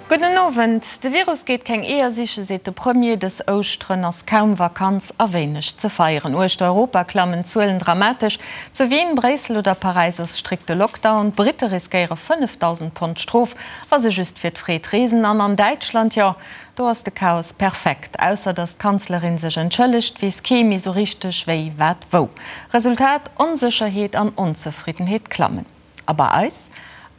Gudden Owend. De Virus geet keng Eeër sichen, seet de Premier. Dës Ouschteren ass kaum Vakanz a wéineg ze feieren. Uechter Europa klammen d'Zuelen dramatesch. Zu Wien, Bréissel oder Paräis ass strikte Lockdown. D'Britte riskéiere 5.000 Pond Strof, wa se just fir d'Freed reesen. An an Däitschland, jo, do ass de Chaos perfekt. Ausser datt d'Kanzlerin sech entschëllegt, weess kee méi sou richteg wéi, wat, wou. Resultat, Onsécherheet an Onzefriddenheet klammen. A bei eis?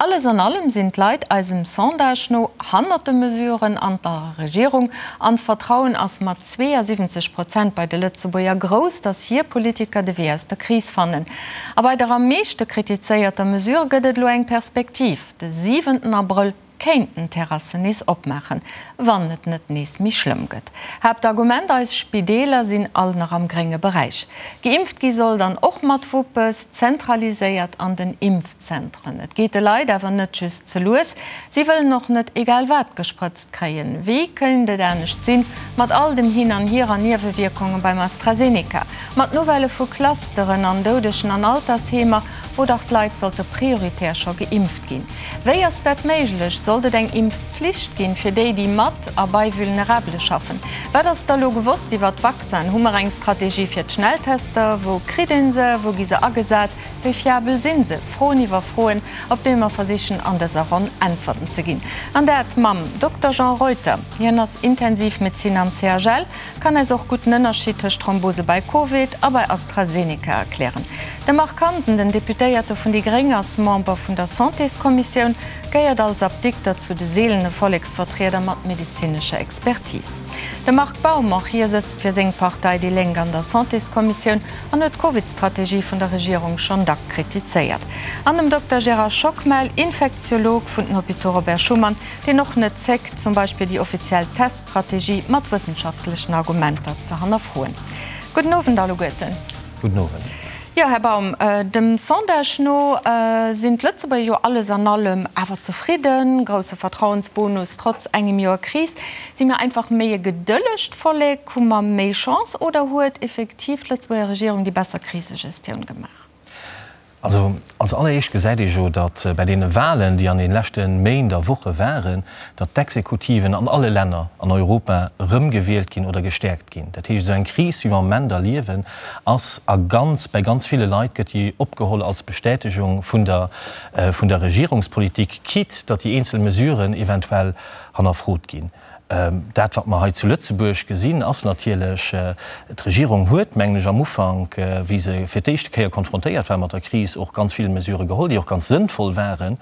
Alles an allem sinn d'Leit eisem Sondage no hannert de Mesuren an der Regierung an d'Vertrauen ass mat 72 Prozent bei de Lëtzebuerger grouss, datt hir Politiker de Wee aus der Kris fannen. A bei der am meeschte kritizéierter Mesure gëtt et elo eng Perspektiv, de siwenten Abrëll kéinten d'Terrassen nees opmaachen, wann et net nees méi schlëmm gëtt. Haaptargument, Eis Spideeler sinn all nach am grénge Beräich. Geimpft gi soll dann och mat Wuppes, zentraliséiert an den Impfzentren. Et geet de Leit awer net just ze lues, si wëllen och net egal wat gesprëtzt kréien. Wéi kéint et anescht sinn, mat all dem Hin an Hier an Niewewierkunge beim AstraZeneca, mat Nouvellë vu Clusteren an Doudegen an Altersheemer, wou dach d'Leit sollte prioritär scho geimpft ginn. Wéi ass dat méiglech? Sollt et eng Impfpflicht ginn fir déi, déi mat a bei Vulnerabele schaffen? Wat ass da lo gewosst iwwert d'Vaccinen? Hu mer eng Strategie fir d'Schnelltester? Wou kritt een se? Wou gi se agesat? Wéi fiabel sinn se? Froen iwwer Froen, op déi mer versichen an dëser Ronn Äntwerten ze ginn. An dat mam Dokter Jean Reuter. Hien ass Intensivmedeziner am CHL. Kann eis och gutt den Ënnerscheed tëscht Thrombose bei Covid a bei AstraZeneca erklären. De Marc Hansen, den Deputéierte vun déi Gréng, ass Member vun der Santéskommissioun, gehéiert als Apdikter zu de seelene Volleksvertrieder mat medezinescher Expertise. De Marc Baum, och hie sëtzt fir seng Partei déi Lénk an der Santéskommissioun an huet d'Covid-Strategie vun der Regierung schonn dack kritizéiert. An dem Dokter Gérard Schockmel, Infektiolog vun den Hôpitaux Robert Schuman, deen och net zéckt, zum Beispill déi offiziell Teststrategie mat wëssenschaftlechen Argumenter ze hannerfroen. Gudden Owend alleguerten. Gudden Owend. Jo, Här Baum, dem Sondage no sinn d'Lëtzebuerger jo alles an allem awer zefridden. Grousse Vertrauensbonus trotz engem Joer Kris. Si mir einfach méi e gedëllegt Vollek? Hu mer méi Chance oder huet effektiv d'Lëtzebuerger Regierung déi besser Krisegestioun gemaach? Also als alleréischt gesäit ee jo, datt bei deene Wahlen, déi an de leschte Méint a Woche waren, datt d'Exekutiven an alle Länner an Europa erëmgewielt ginn oder gestäerkt ginn. Dat heescht, esou eng Kris, wéi mer am Moment erliewen, ass a ganz, bei ganz ville Leit gëtt déi opgeholl als Bestätegung vun der, vun der Regierungspolitik, quitte datt déi eenzel Mesuren eventuell hannerfrot ginn. Dat, wat mer hei zu Lëtzebuerg gesinn, ass natierlech, d'Regierung huet, mengen ech, am Ufank, wéi se fir d'éischte Kéier konfrontéiert war mat der Kris, och ganz vill Mesurë geholl, déi och ganz sënnvoll waren.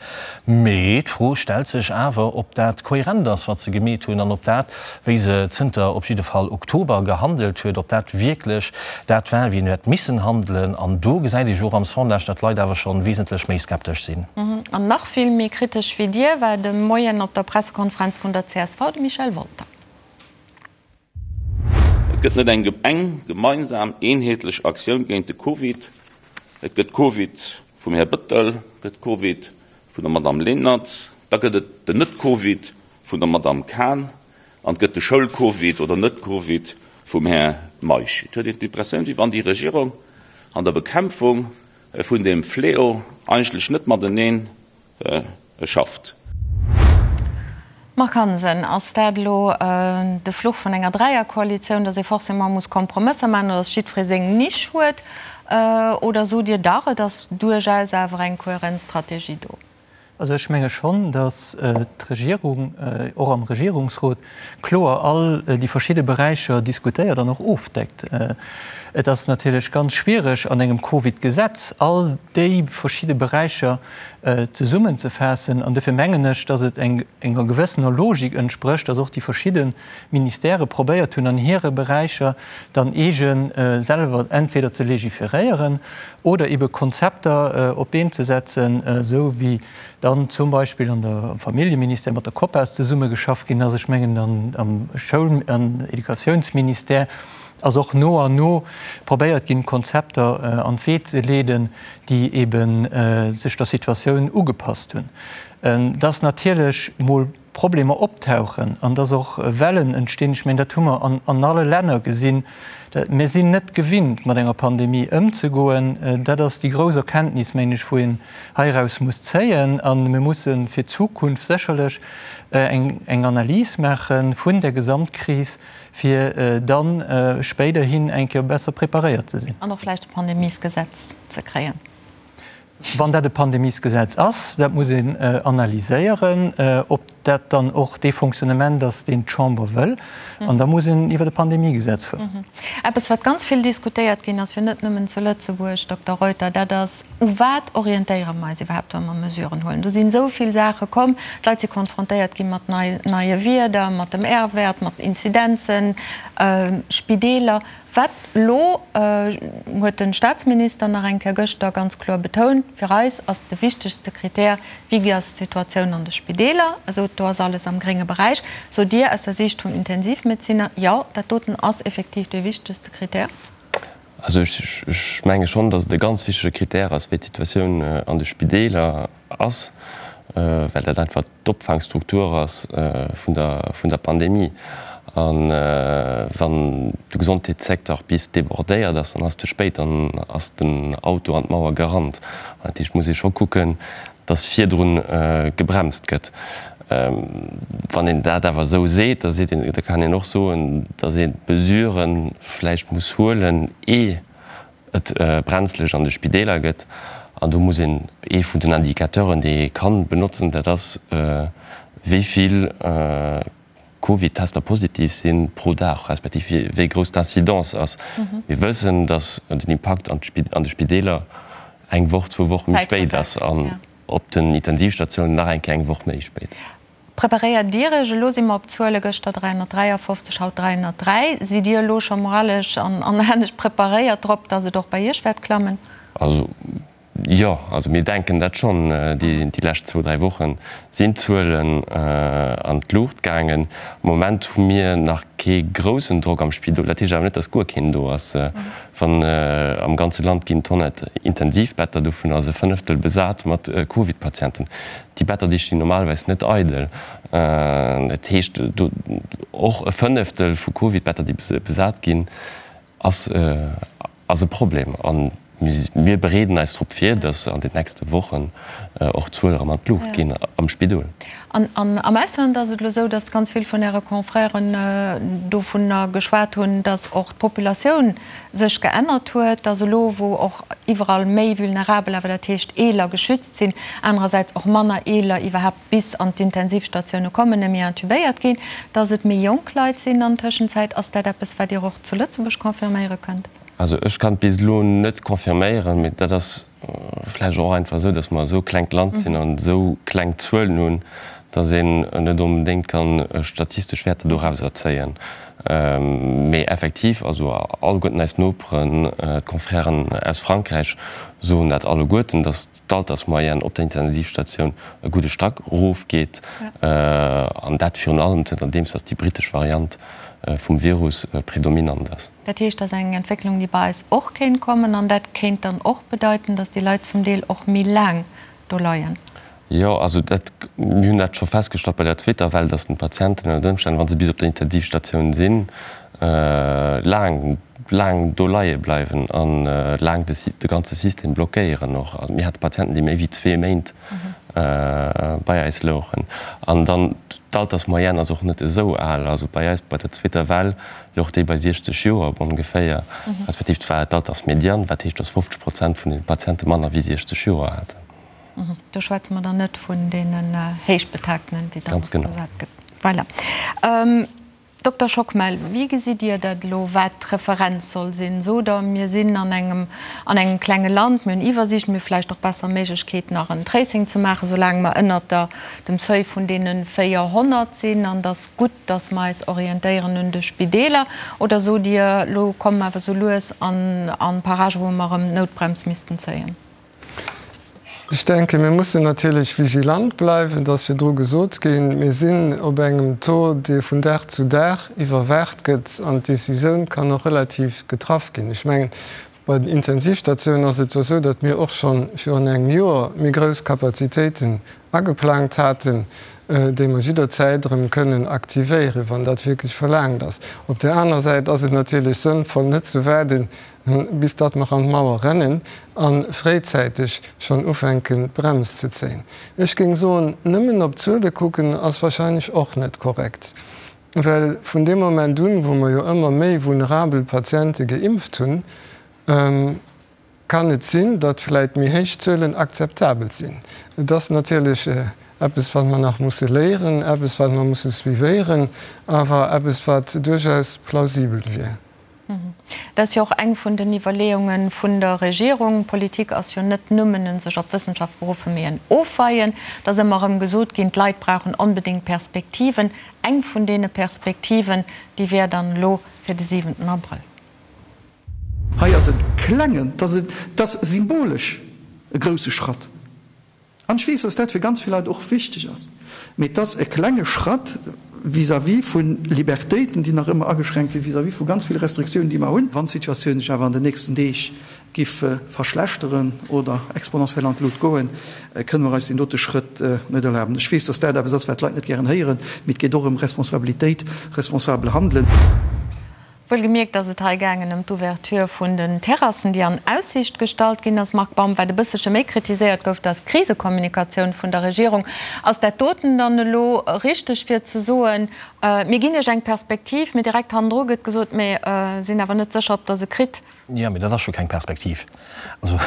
Mee d'Fro stellt sech awer, ob dat kohärent ass, wat se gemeet hunn, an ob dat, wéi se zënter op jidde Fall Oktober gehandelt huet, ob dat wierklech dat war, wéi een huet missen handelen. An do gesäit ee jo och am Sondage, datt d'Leit awer scho wesentlech méi skeptesch sinn. An nach vill méi kritesch wéi Dir war de Moien op der Pressekonferenz vun der csv de Michel Wolter. Et gëtt net eng eng gemeinsam, eenheetlech Aktioun géint de Covid. Et gëtt Covid vum Här Bëttel, gëtt Covid vun der Madamm Lenert, da gëtt et den Net-Covid vun der Madamm Cahen an et gëtt de Schoul-Covid oder Net-Covid vum Här Meisch. Et huet een d'Impressioun, wéi wann déi Regierung an der Bekämpfung vun deem Fléau eigentlech net mateneen schafft. Marc Hansen, Ass dat elo de Fluch vun enger Dräierkoalitioun, datt ee forcément muss Kompromësser maachen oder datt jiddweree seng Nisch huet? Oder sot Dir dach, et ass duerchaus awer eng kohärent Strategie do? Also ech menge schonn, datt d'Regierung och am Regierungsrot kloer all déi verschidde Beräicher diskutéiert an och ofdeckt. Et ass natierlech ganz schwiereg an engem Covid-Gesetz all déi verschidde Beräicher zesummenzefaassen. An dofir mengen ech, datt et enger gewëssener Logik entsprécht, datt och déi verschidde Ministèrë probéiert hunn an hire Beräicher dann eege selwer entweder ze legiferéieren oder ebe Konzepter op d'Been ze setzen, esou wéi dann zum Beispill an der, am Familljeministère mat der COPAS zesummegeschafft ginn ass. Ech mengen, am Schoul an Educatiounsministère ass och no an no probéiert ginn, Konzepter an d'Wee ze leeden, déi ebe sech der Situatioun ugepasst hunn. Et ass natierlech mol. Problemer optauchen an dass och Wellen entstinn. Ech mengen, dat hu mer an alle Länner gesinn. Mir sinn net gewinnt, mat enger Pandemie ëmzegoen. Dat ass déi grouss Erkenntnis, mengen ech, wou een heiraus muss zéien. A mir musse fir d'Zukunft sécherlech eng Analys maache vun der Gesamtkris, fir da spéiderhin eng Kéier besser preparéiert ze sinn. An och vläicht e Pandemiesgesetz ze kréien. Wann dat e Pandemiesgesetz ass, dat muss een analyséieren, ob dat dann och dee Fonctionnement ass, deen d'Chamber wëll. An da muss een iwwer e Pandemiegesetz fueren. Eppes, wat ganz vill diskutéiert ginn ass, jo net nëmmen zu Lëtzebuerg, Dokter Reuter, dat ass, U wat orientéiere mer eis iwwerhaapt, wa mer Mesuren huelen? Do sinn esou vill Saache komm. D'Leit si konfrontéiert gi mat neie Wierder, mat dem R-Wäert, mat Inzidenzen, Spideeler. Wat elo, huet de Staatsminister nach eng Kéier gëschter ganz kloer betount, fir eis ass de wichtegste Krittär, wéi ass d'Situatioun an de Spideeler? Also do ass alles am grénge Beräich. Sot Dir aus der Siicht vum Intensivmedeziner, jo, dat doten ass effektiv dee wichtegste Krittär? Also ech menge schonn, datt et e ganz wichtege Krittär ass, wéi d'Situatioun an de Spideeler ass, well dat einfach d'Opfaangstruktur ass vun der Pandemie. A wann de Gesondheetssecteur bis débordéiert ass, dann ass et ze spéit, dann ass den Auto an d'Mauer gerannt. Dat heescht, et muss ee scho kucken, datt virdru gebremst gëtt. Wann een dat awer esou seet, da seet een, da kann een och soen, datt ee Mesurë vläicht muss huelen, ee et brenzlech an de Spideeler gëtt. An do muss een, ee vun den Indicateuren, déi ee kann benotzen, dat ass, wéi vill Covid-Tester positiv si pro Dag, respektiv wéi grouss d'Incidence ass. Mir wëssen, datt den Impakt an de Spideeler eng Woch, zwou Woche méi spéit ass an op den Intensivstatiounen nach eng Kéier eng Woch méi spéit. Preparéiert Dir Iech, elo si mer op Zuele gëschter 353, haut 303, sidd Dir elo scho moralesch an anescht preparéiert drop, datt et och bei Iech wäert klammen? Also jo, also mir denken dat schonn. Déi lescht zwou, dräi Woche sinn d'Zuelen an d'Luucht gaangen. Am Moment hu mir nach kee groussen Drock am Spidol. Dat heescht awer net, datt guer keen do ass. Wann am ganze Land ginn 100 Intensivbetter, dovun ass e Fënneftel besat mat Covid-Patienten. Déi Better, déi stinn normalerweis net eidel. Dat heescht, do och e Fënneftel vu Covid-Better, déi besat ginn, ass ass e Problem. A mir bereeden eis drop vir, datt an den nächste Wochen och d'Zuele erëm an d'Luucht ginn am Spidol. An am Ausland ass et elo esou, datt ganz vill vun Äre Confrèren dovunner geschwat hunn, datt och d'Populatioun sech geännert huet, datt elo, wou och iwwerall méi Vulnerabel, awer dat heescht Eeler, geschützt sinn, anerersäits och manner Eeler iwwerhaapt bis an d'Intensivstatioune kommen, méi intubéiert ginn, dass et méi jonk Leit sinn an Tëschenzäit. Ass dat eppes, wat Dir och zu Lëtzebuerg confirméiere kënnt? Also ech kann et bis elo net confirméieren, mee dat ass vläicht och einfach esou, dass mer esou e klengt Land sinn an esou kleng Zuelen hunn, dass een net onbedéngt kann statistesch Wäerter dorauser zéien. Mee effektiv, also alleguerten eis Noperen, d'Confrèren aus Frankräich soen dat alleguerten, dass d'Altersmoyenne op der Intensivstatioun e gudde Stack erofgeet. An dat virun allem zënterdeems dass déi brittesch Variant vum Virus predominant ass. Dat heescht, dat ass eng Entwécklung, déi bei eis och kéint kommen. An dat kéint dann och bedeiten, dass déi Leit zum Deel och méi laang do leien. Jo, also dat, mir hunn dat scho festgestallt bei der zweeter Well, dass den Patienten ënnert Ëmstänn, wa se bis op der Intensivstatioun sinn, laang, laang do leie bleiwen a laang de de ganze System blockéieren och. Also mir hate Patienten, déi méi wéi zwee Méint bei eis louchen. An dann, d'Altersmoyenne ass och net esou al. Also bei eis bei der zweeter Well louch déi bei 60 Joer ongeféier, respektiv et war d'Altersmedian, wat heescht, dass 50 Prozent vun de Patiente manner wéi 60 Joer haten. Do schwätze mer dann net vun deenen Héichbetagten, wéi dann oft gesat gëtt. Voilà. Dokter Schockmel, wéi gesitt Dir dat elo, wat d'Referenz soll sinn? Sot Der, mir sinn an engem, an engem klenge Land, mir hunn Iwwersiicht, mir hu vläicht och besser Méiglechkeet nach en Tracing ze maachen, soulaang mer ënnert der, dem Seuil vun deene 400 sinn, an et ass gutt, datt mer eis orientéieren un de Spideeler? Oder sot Dir, elo komme mer awer sou lues an, an Paragen, wou mer erëm d'Noutbrems missten zéien? Ech denken, mir mussen natierlech vigilant bleiwen, et ass virdru gesot ginn. Mir sinn op engem Taux, dee vun Dag zu Dag iwwerwaacht gëtt an d'Decisioun kann och relativ getraff ginn. Ech mengen, bei den Intensivstatiounen ass et jo esou, datt mir och scho virun engem Joer méi grouss Kapazitéiten ageplangt haten. déi mer jidderzäit erëm kënnen aktivéieren, wann dat wierklech verlaangt ass. Op där aner Säit ass et natierlech sënnvoll, net ze waarden, bis datt mer an d'Mauer rennen a fréizäiteg schonn ufänken, d'Brems ze zéien. Ech géing soen, nëmmen op d'Zuele kucken ass wahrscheinlech och net korrekt, well vun deem Moment un, wou mer jo ëmmer méi vulnerabel Patiente geimpft hunn, kann et sinn, datt vläit méi héich Zuelen akzeptabel sinn. Et ass natierlech eppes, wat mer nach musse léieren, eppes, wat mer musse suivéieren, awer eppes, wat duerchaus plausibel wier. Dat ass jo och eng vun den Iwwerleeunge vun der Regierung. Politik ass jo net nëmmen en sech op d'Wëssenschaft beruffen, mee en Ofweien. Et ass ëmmer erëm gesot ginn, d'Leit brauchen onbedéngt Perspektiven. Eng vun deene Perspektiven, déi wär dann elo fir de siwenten Abrëll. Hei ass e klengen, et ass symbolesch e grousse Schratt. An ech weess, dass dat fir ganz vill Leit och wichteg ass. Mee et ass e klenge Schratt vis-à-vis vu Libertéiten, déi nach ëmmer ageschränkt sinn, vis-à-vis vu ganz ville Restriktiounen, déi mer hunn. Wann d'Situatioun sech awer an den nächsten Deeg giff verschlechteren oder exponentiell an d'Lut goen, kënne mer eis deen dote Schrëtt net erlaben. Ech weess, dass dat eppes ass, wat d'Leit net gären héieren, mee et geet och ëm Responsabilitéit, responsabel Handelen. Wuelgemierkt ass et hei gaangen ëm d'Ouverture vun den Terrassen, déi an Aussiicht gestallt ginn ass. Marc Baum, Wat e bësselche méi kritiséiert gouf, dat ass d'Krisekommunikatioun vun der Regierung. Ass dat doten dann elo richteg fir ze soen, mir ginn Iech eng Perspektiv, mee direkt hannendru gëtt gesot, mir sinn awer net sécher, ob Der se kritt? Jo, mee dat ass scho keng Perspektiv. Also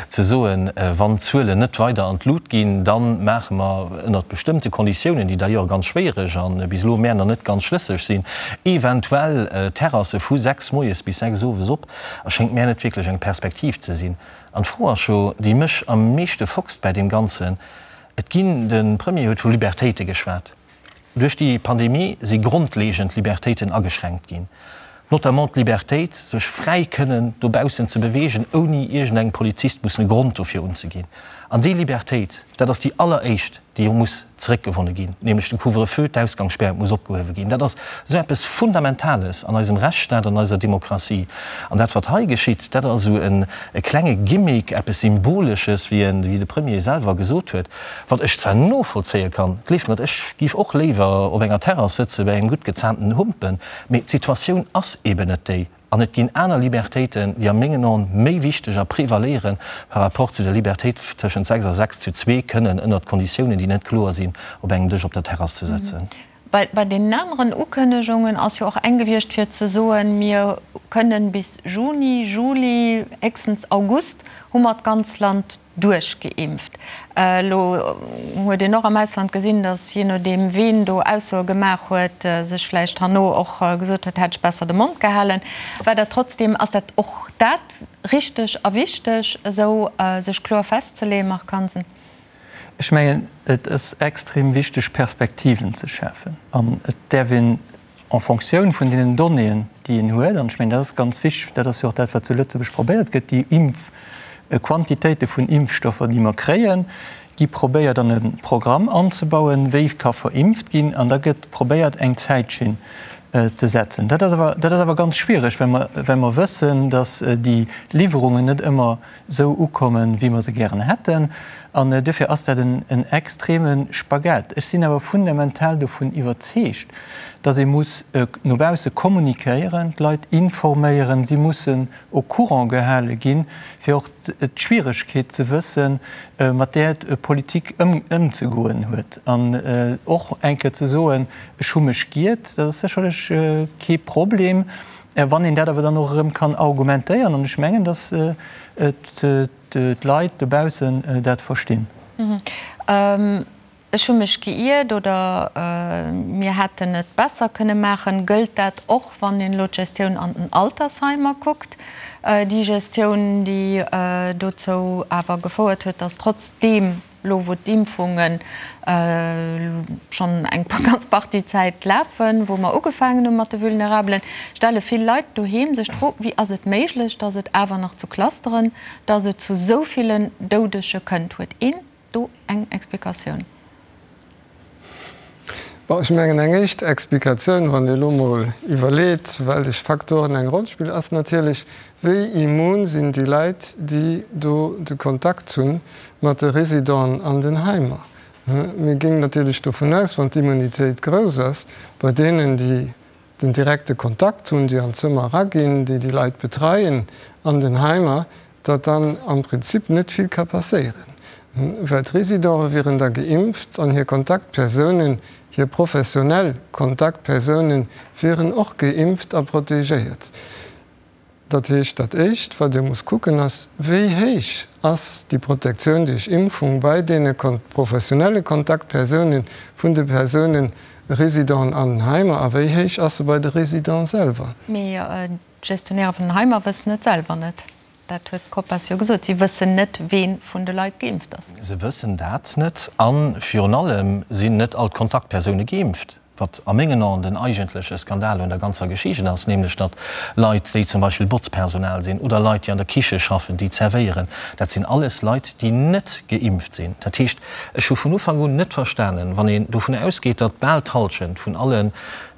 ze soen, wann d'Zuelen net weider an d'Lut ginn, da maache mer ënnert bestëmmte Konditiounen, déi d'ailleurs ganz schwéiereg a bis elo mär nach net ganz schlësseg sinn, eventuell Terrasse vu 6 moies bis 6 owes op, erschéngt mär net wierklech eng Perspektiv ze sinn. An d'Fro ass jo, déi mech am meeschte foxt bäi deem Ganzen, Et ginn, de Premier huet vu Libertéite geschwat, Duerch déi Pandemie si grondlegend Libertéiten ageschränkt ginn, notamment d'Libertéit, sech fräi kënnen dobaussen ze beweegen, ouni iergendengem Polizist mussen e Grond dofir unzeginn. An déi Libertéit, dat ass déi alleréischt, déi muss zeréckgewonne ginn, nämlech de Couvre-feu, d'Ausgangsspär muss opgehuewe ginn. Dat ass esou eppes Fundamentales an eisem Rechtsstaat, an eiser Demokratie. An dat, wat hei geschitt, dat ass esou e klenge Gimmick, eppes Symbolesches, wéi de Premier selwer gesot huet. Wat ech zwar novollzéie kann, gleeft mer et, ech giff och léiwer op enger Terrass sëtze bei engem gutt gezaamten Humpen, mee d'Situatioun ass eben net déi an et ginn aner Libertéiten, déi a mengen Aen méi wichteg a prevaléiere par rapport zu der Libertéit tëschent 6 a 6 zu zwee kënnen ënnert Konditiounen, déi net kloer sinn, op engem Dësch op der Terrass ze sëtzen. Bei deenen aneren Ukënnegungen ass jo och eng gewiescht fir ze soen, mir kënnen bis Juni, Juli, héchstens August hu mer d'ganz Land duerchgeimpft. Elo huet een och am Ausland gesinn, datt jee nodeem ween do Aussoe gemaach huet, sech vläicht herno och gesot huet, hätt ech besser de Mond gehalen. War dat trotzdem, ass dat och dat richteg a wichteg, esou sech kloer festzeleeën, Marc Hansen? Ech mengen, et ass extrem wichteg Perspektiven ze schafen an et däerf een en Fonctioun vun deenen Donnéeën, déi een huet, an ech mengen, dat ass ganz wichteg, dat ass jo och dat, wat zu Lëtzebuerg probéiert gëtt, déi Impfquantitéite vun Impfstoffer, déi mer kréien, gi probéiert an e Programm anzebauen, wéi ka verimpft ginn, an da gëtt probéiert, eng Zäitschinn ze setzen. Dat ass awer, dat ass awer ganz schwierig, well mer, well mer wëssen, datt déi Liwwerungen net ëmmer esou ukommen, wéi mer se gären hätten. An duerfir ass dat en extreme Spagat. Ech sinn awer fundamental dovun iwwerzeegt, dass ee muss no bausse kommunikéieren, d'Leit informéieren, si mussen au courant gehale ginn, fir och d'Schwieregkeet ze wëssen, mat där d'Politik ëmzegoen huet. An och eng Kéier ze soen, ech hu mech giert, dat ass sécherlech kee Problem. Wann een dat awer dann och erëm kann argumentéieren, an ech mengen, datt d'Leit dobaussen dat verstinn. Ech hu mech geiert oder mir hätten et besser kënne maachen. Gëllt dat och, wann een elo d'Gestioun an den Altersheimer kuckt? Déi Gestioun, déi dozou awer gefouert huet, datt trotzdeem Elo wou d'Impfunge schonn eng ganz Partie Zäit lafen, wou mer ugefaangen hu mat de Vulnerabelen, stelle vill Leit doheem sech d'Fro, Wéi ass et méiglech, datt et awer nach zu Clusteren, datt et zu esou villen Doudege kënnt? Huet een do eng Explikatioun? Bon, ech mengen, eng éischt Explikatioun, wann ee elo mol iwwerleet, wellech Faktoren eng Roll spillen, ass natierlech, Wéi immun sinn déi Leit, déi do de Kontakt hu mat de Residenten an den Heimer? Mir ginn natierlech dovun aus, wann d'Immunitéit grouss ass bei deenen, déi den direkte Kontakt hunn, déi an d'Zëmmer eraginn, déi déi Leit betreien an den Heimer, datt dann am Prinzip net vill ka passéieren, well d'Residente wieren da geimpft an hir Kontaktpersounen, hir professionell Kontaktpersounen wieren och geimpft a protegéiert. Dat heescht, dat Éischt, wat ee muss kucken, ass, Wéi héich ass déi Protektioun duerch Impfung bei deene professionelle Kontaktpersounen vun de Persounen, Residenten an den Heimer, a wéi héich ass se bei de Residenten selwer? Mee d'Gestionnairë vun den Heimer wëssen et selwer net. Dat huet d'COPAS jo gesot. Si wëssen net, wee vun de Leit geimpft ass. Se wëssen dat net. A virun allem sinn net all d'Kontaktpersoune geimpft. Wat a mengen Aen den eigentleche Skandal un der ganzer Geschicht ass, nämlech datt Leit, déi zum Beispill Botzpersonal sinn oder Leit, déi an der Kiche schaffen, déi zerwéieren, dat sinn alles Leit, déi net geimpft sinn. Dat heescht, ech hu vun Ufank un net verstanen, wann een dovun ausgeet, datt bal d'Halschent vun allen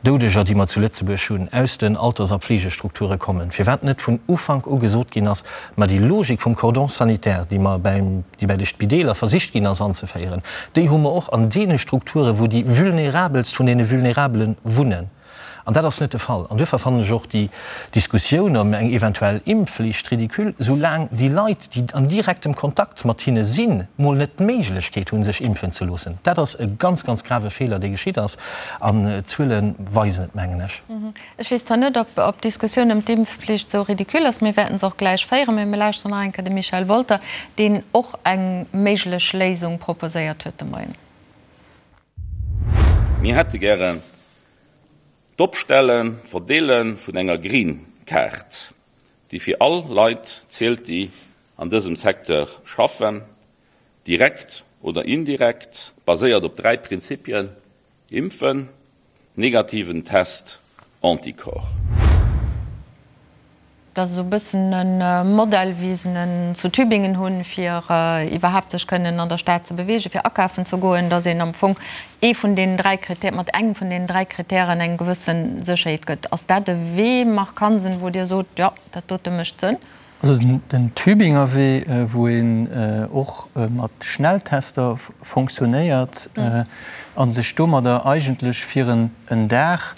Doudeger, déi mer zu Lëtzebuerg hunn, aus den Alters a Pflegestrukture kommen, firwat net vun Ufank u gesot ginn ass, ma déi Logik vum Cordon sanitaire, déi mer beim, déi bei de Spideeler versicht ginn ass anzeféieren, déi hu mer och an deene Strukturen, wou déi Vulnerabelst vun deene Vulnerabele wunnen. An dat ass net de Fall. An duerfir fannen ech och déi Diskussioun ëm eng eventuell Impfflicht ridicule, soulaang déi Leit, déi an direktem Kontakt mat hinne sinn, mol net d'Méiglechkeet hunn, sech impfen ze loossen. Dat ass e ganz, ganz grave Feeler, dee geschitt ass. An d'Zuele weisen et, mengen ech. Ech weess zwar net, ob d'Diskussioun ëm d'Impfpflicht esou ridicule ass, mir wäerten se och gläich féieren, mee mir lauschteren nach eng Kéier de Michel Wolter, deen och eng méiglech Léisung proposéiert huet de Moien. Mir hätte gären d'Opstellen, d'Verdeele vun enger Green Card, déi fir all Leit zielt, déi an dësem Secteur schaffen, direkt oder indirekt, baséiert op 3 Prinzipien, Impfen, negativen Test, Anticorps. Dat ass esou e bëssen e Modell, wéi se en zu Tübingen hunn, fir iwwerhaapt sech kënnen an der Stad ze beweegen, fir akafen ze goen, datt een am Fong ee vun deenen 3 Critère, mat engem vun deenen 3 Kritären eng gewësse Sécherheet gëtt. Ass dat e Wee, Marc Hansen, wou Dir sot, jo, dat dote mécht Sënn? Also den Tübinger Wee, wou een och mat Schnelltester fonctionnéiert a sech domadder eigentlech fir en Dag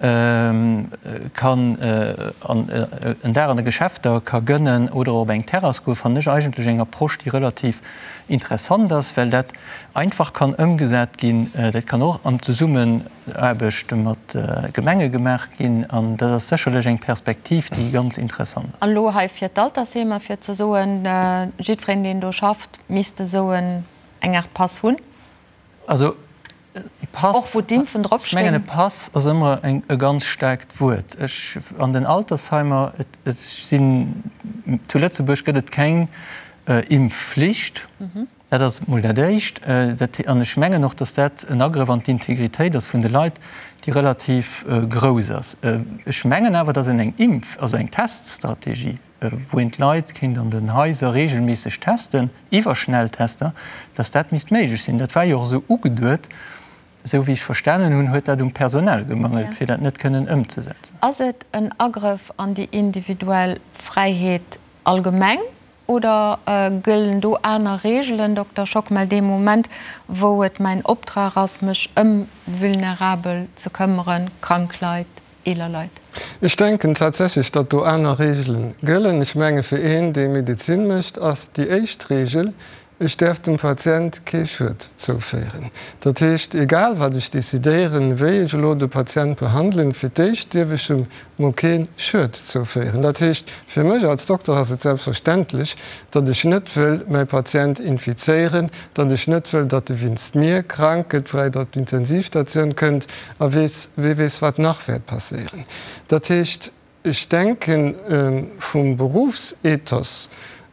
kann en Dag an de Geschäfter ka gënnen oder op eng Terrass goen, fannen ech eigentlech eng Approche, déi relativ interessant ass, well dat einfach kann ëmgesat ginn. Dat kann och an Zesummen. Aarbecht mat Gemenge gemaach ginn an dat ass sécherlech eng Perspektiv, déi ganz interessant ass. An elo hei fir d'Altersheemer, fir ze soen, jiddwereen, deen do schafft, misst esou eng Aart Pass hunn. Also e Pass, och wou d'Impfen drop stinn. Ech mengen, e Pass ass ëmmer e ganz staarkt Wuert. Ech, an den Altersheimer, et sinn, zu Lëtzebuerg gëtt et keng Impfflicht. Dat ass emol dat Éischt. An ech mengen och, datt dat en Agrëff an d'Integritéit ass vun de Leit, déi relativ grouss ass. Ech mengen awer, datt een eng Impf-, also eng Teststrategie, wou een d'Leit kéint an den Haiser regelméisseg testen, iwwer Schnelltester, datt dat misst méiglech sinn. Dat war jo och esou ugeduet. Esou wéi ech verstanen hunn, huet dat um Personal gemangelt, fir dat net kënnen ëmzesetzen. Ass et en Agrëff an déi individuell Fräiheet allgemeng Oder gëllen do aner Reegelen, Dokter Schockmel, dee Moment, wou et mäin Optrag ass, mech ëm Vulnerabel ze këmmeren, krank Leit, eeler Leit? Ech denken tatsächlech, datt do aner Reegele gëllen. Ech menge fir een, dee Medezin mécht, ass déi éischt Reegel, Ech däerf dem Patient kee Schued zouféieren. Dat heescht, egal wat ech decidéieren, wéi ech elo de Patient behandelen, fir d'éischt dierf ech em mol kee Schued zouféieren. Dat heescht, fir mech als Dokter ass et selbstverständlech, datt ech net wëll mäi Patient infizéieren, datt ech net wëll, datt e winst mir krank gëtt, vläicht op d'Intensivstatioun kënnt a weess, wee weess wat nach wäert passéieren. Dat heescht, Ech denken, vum Berufsethos,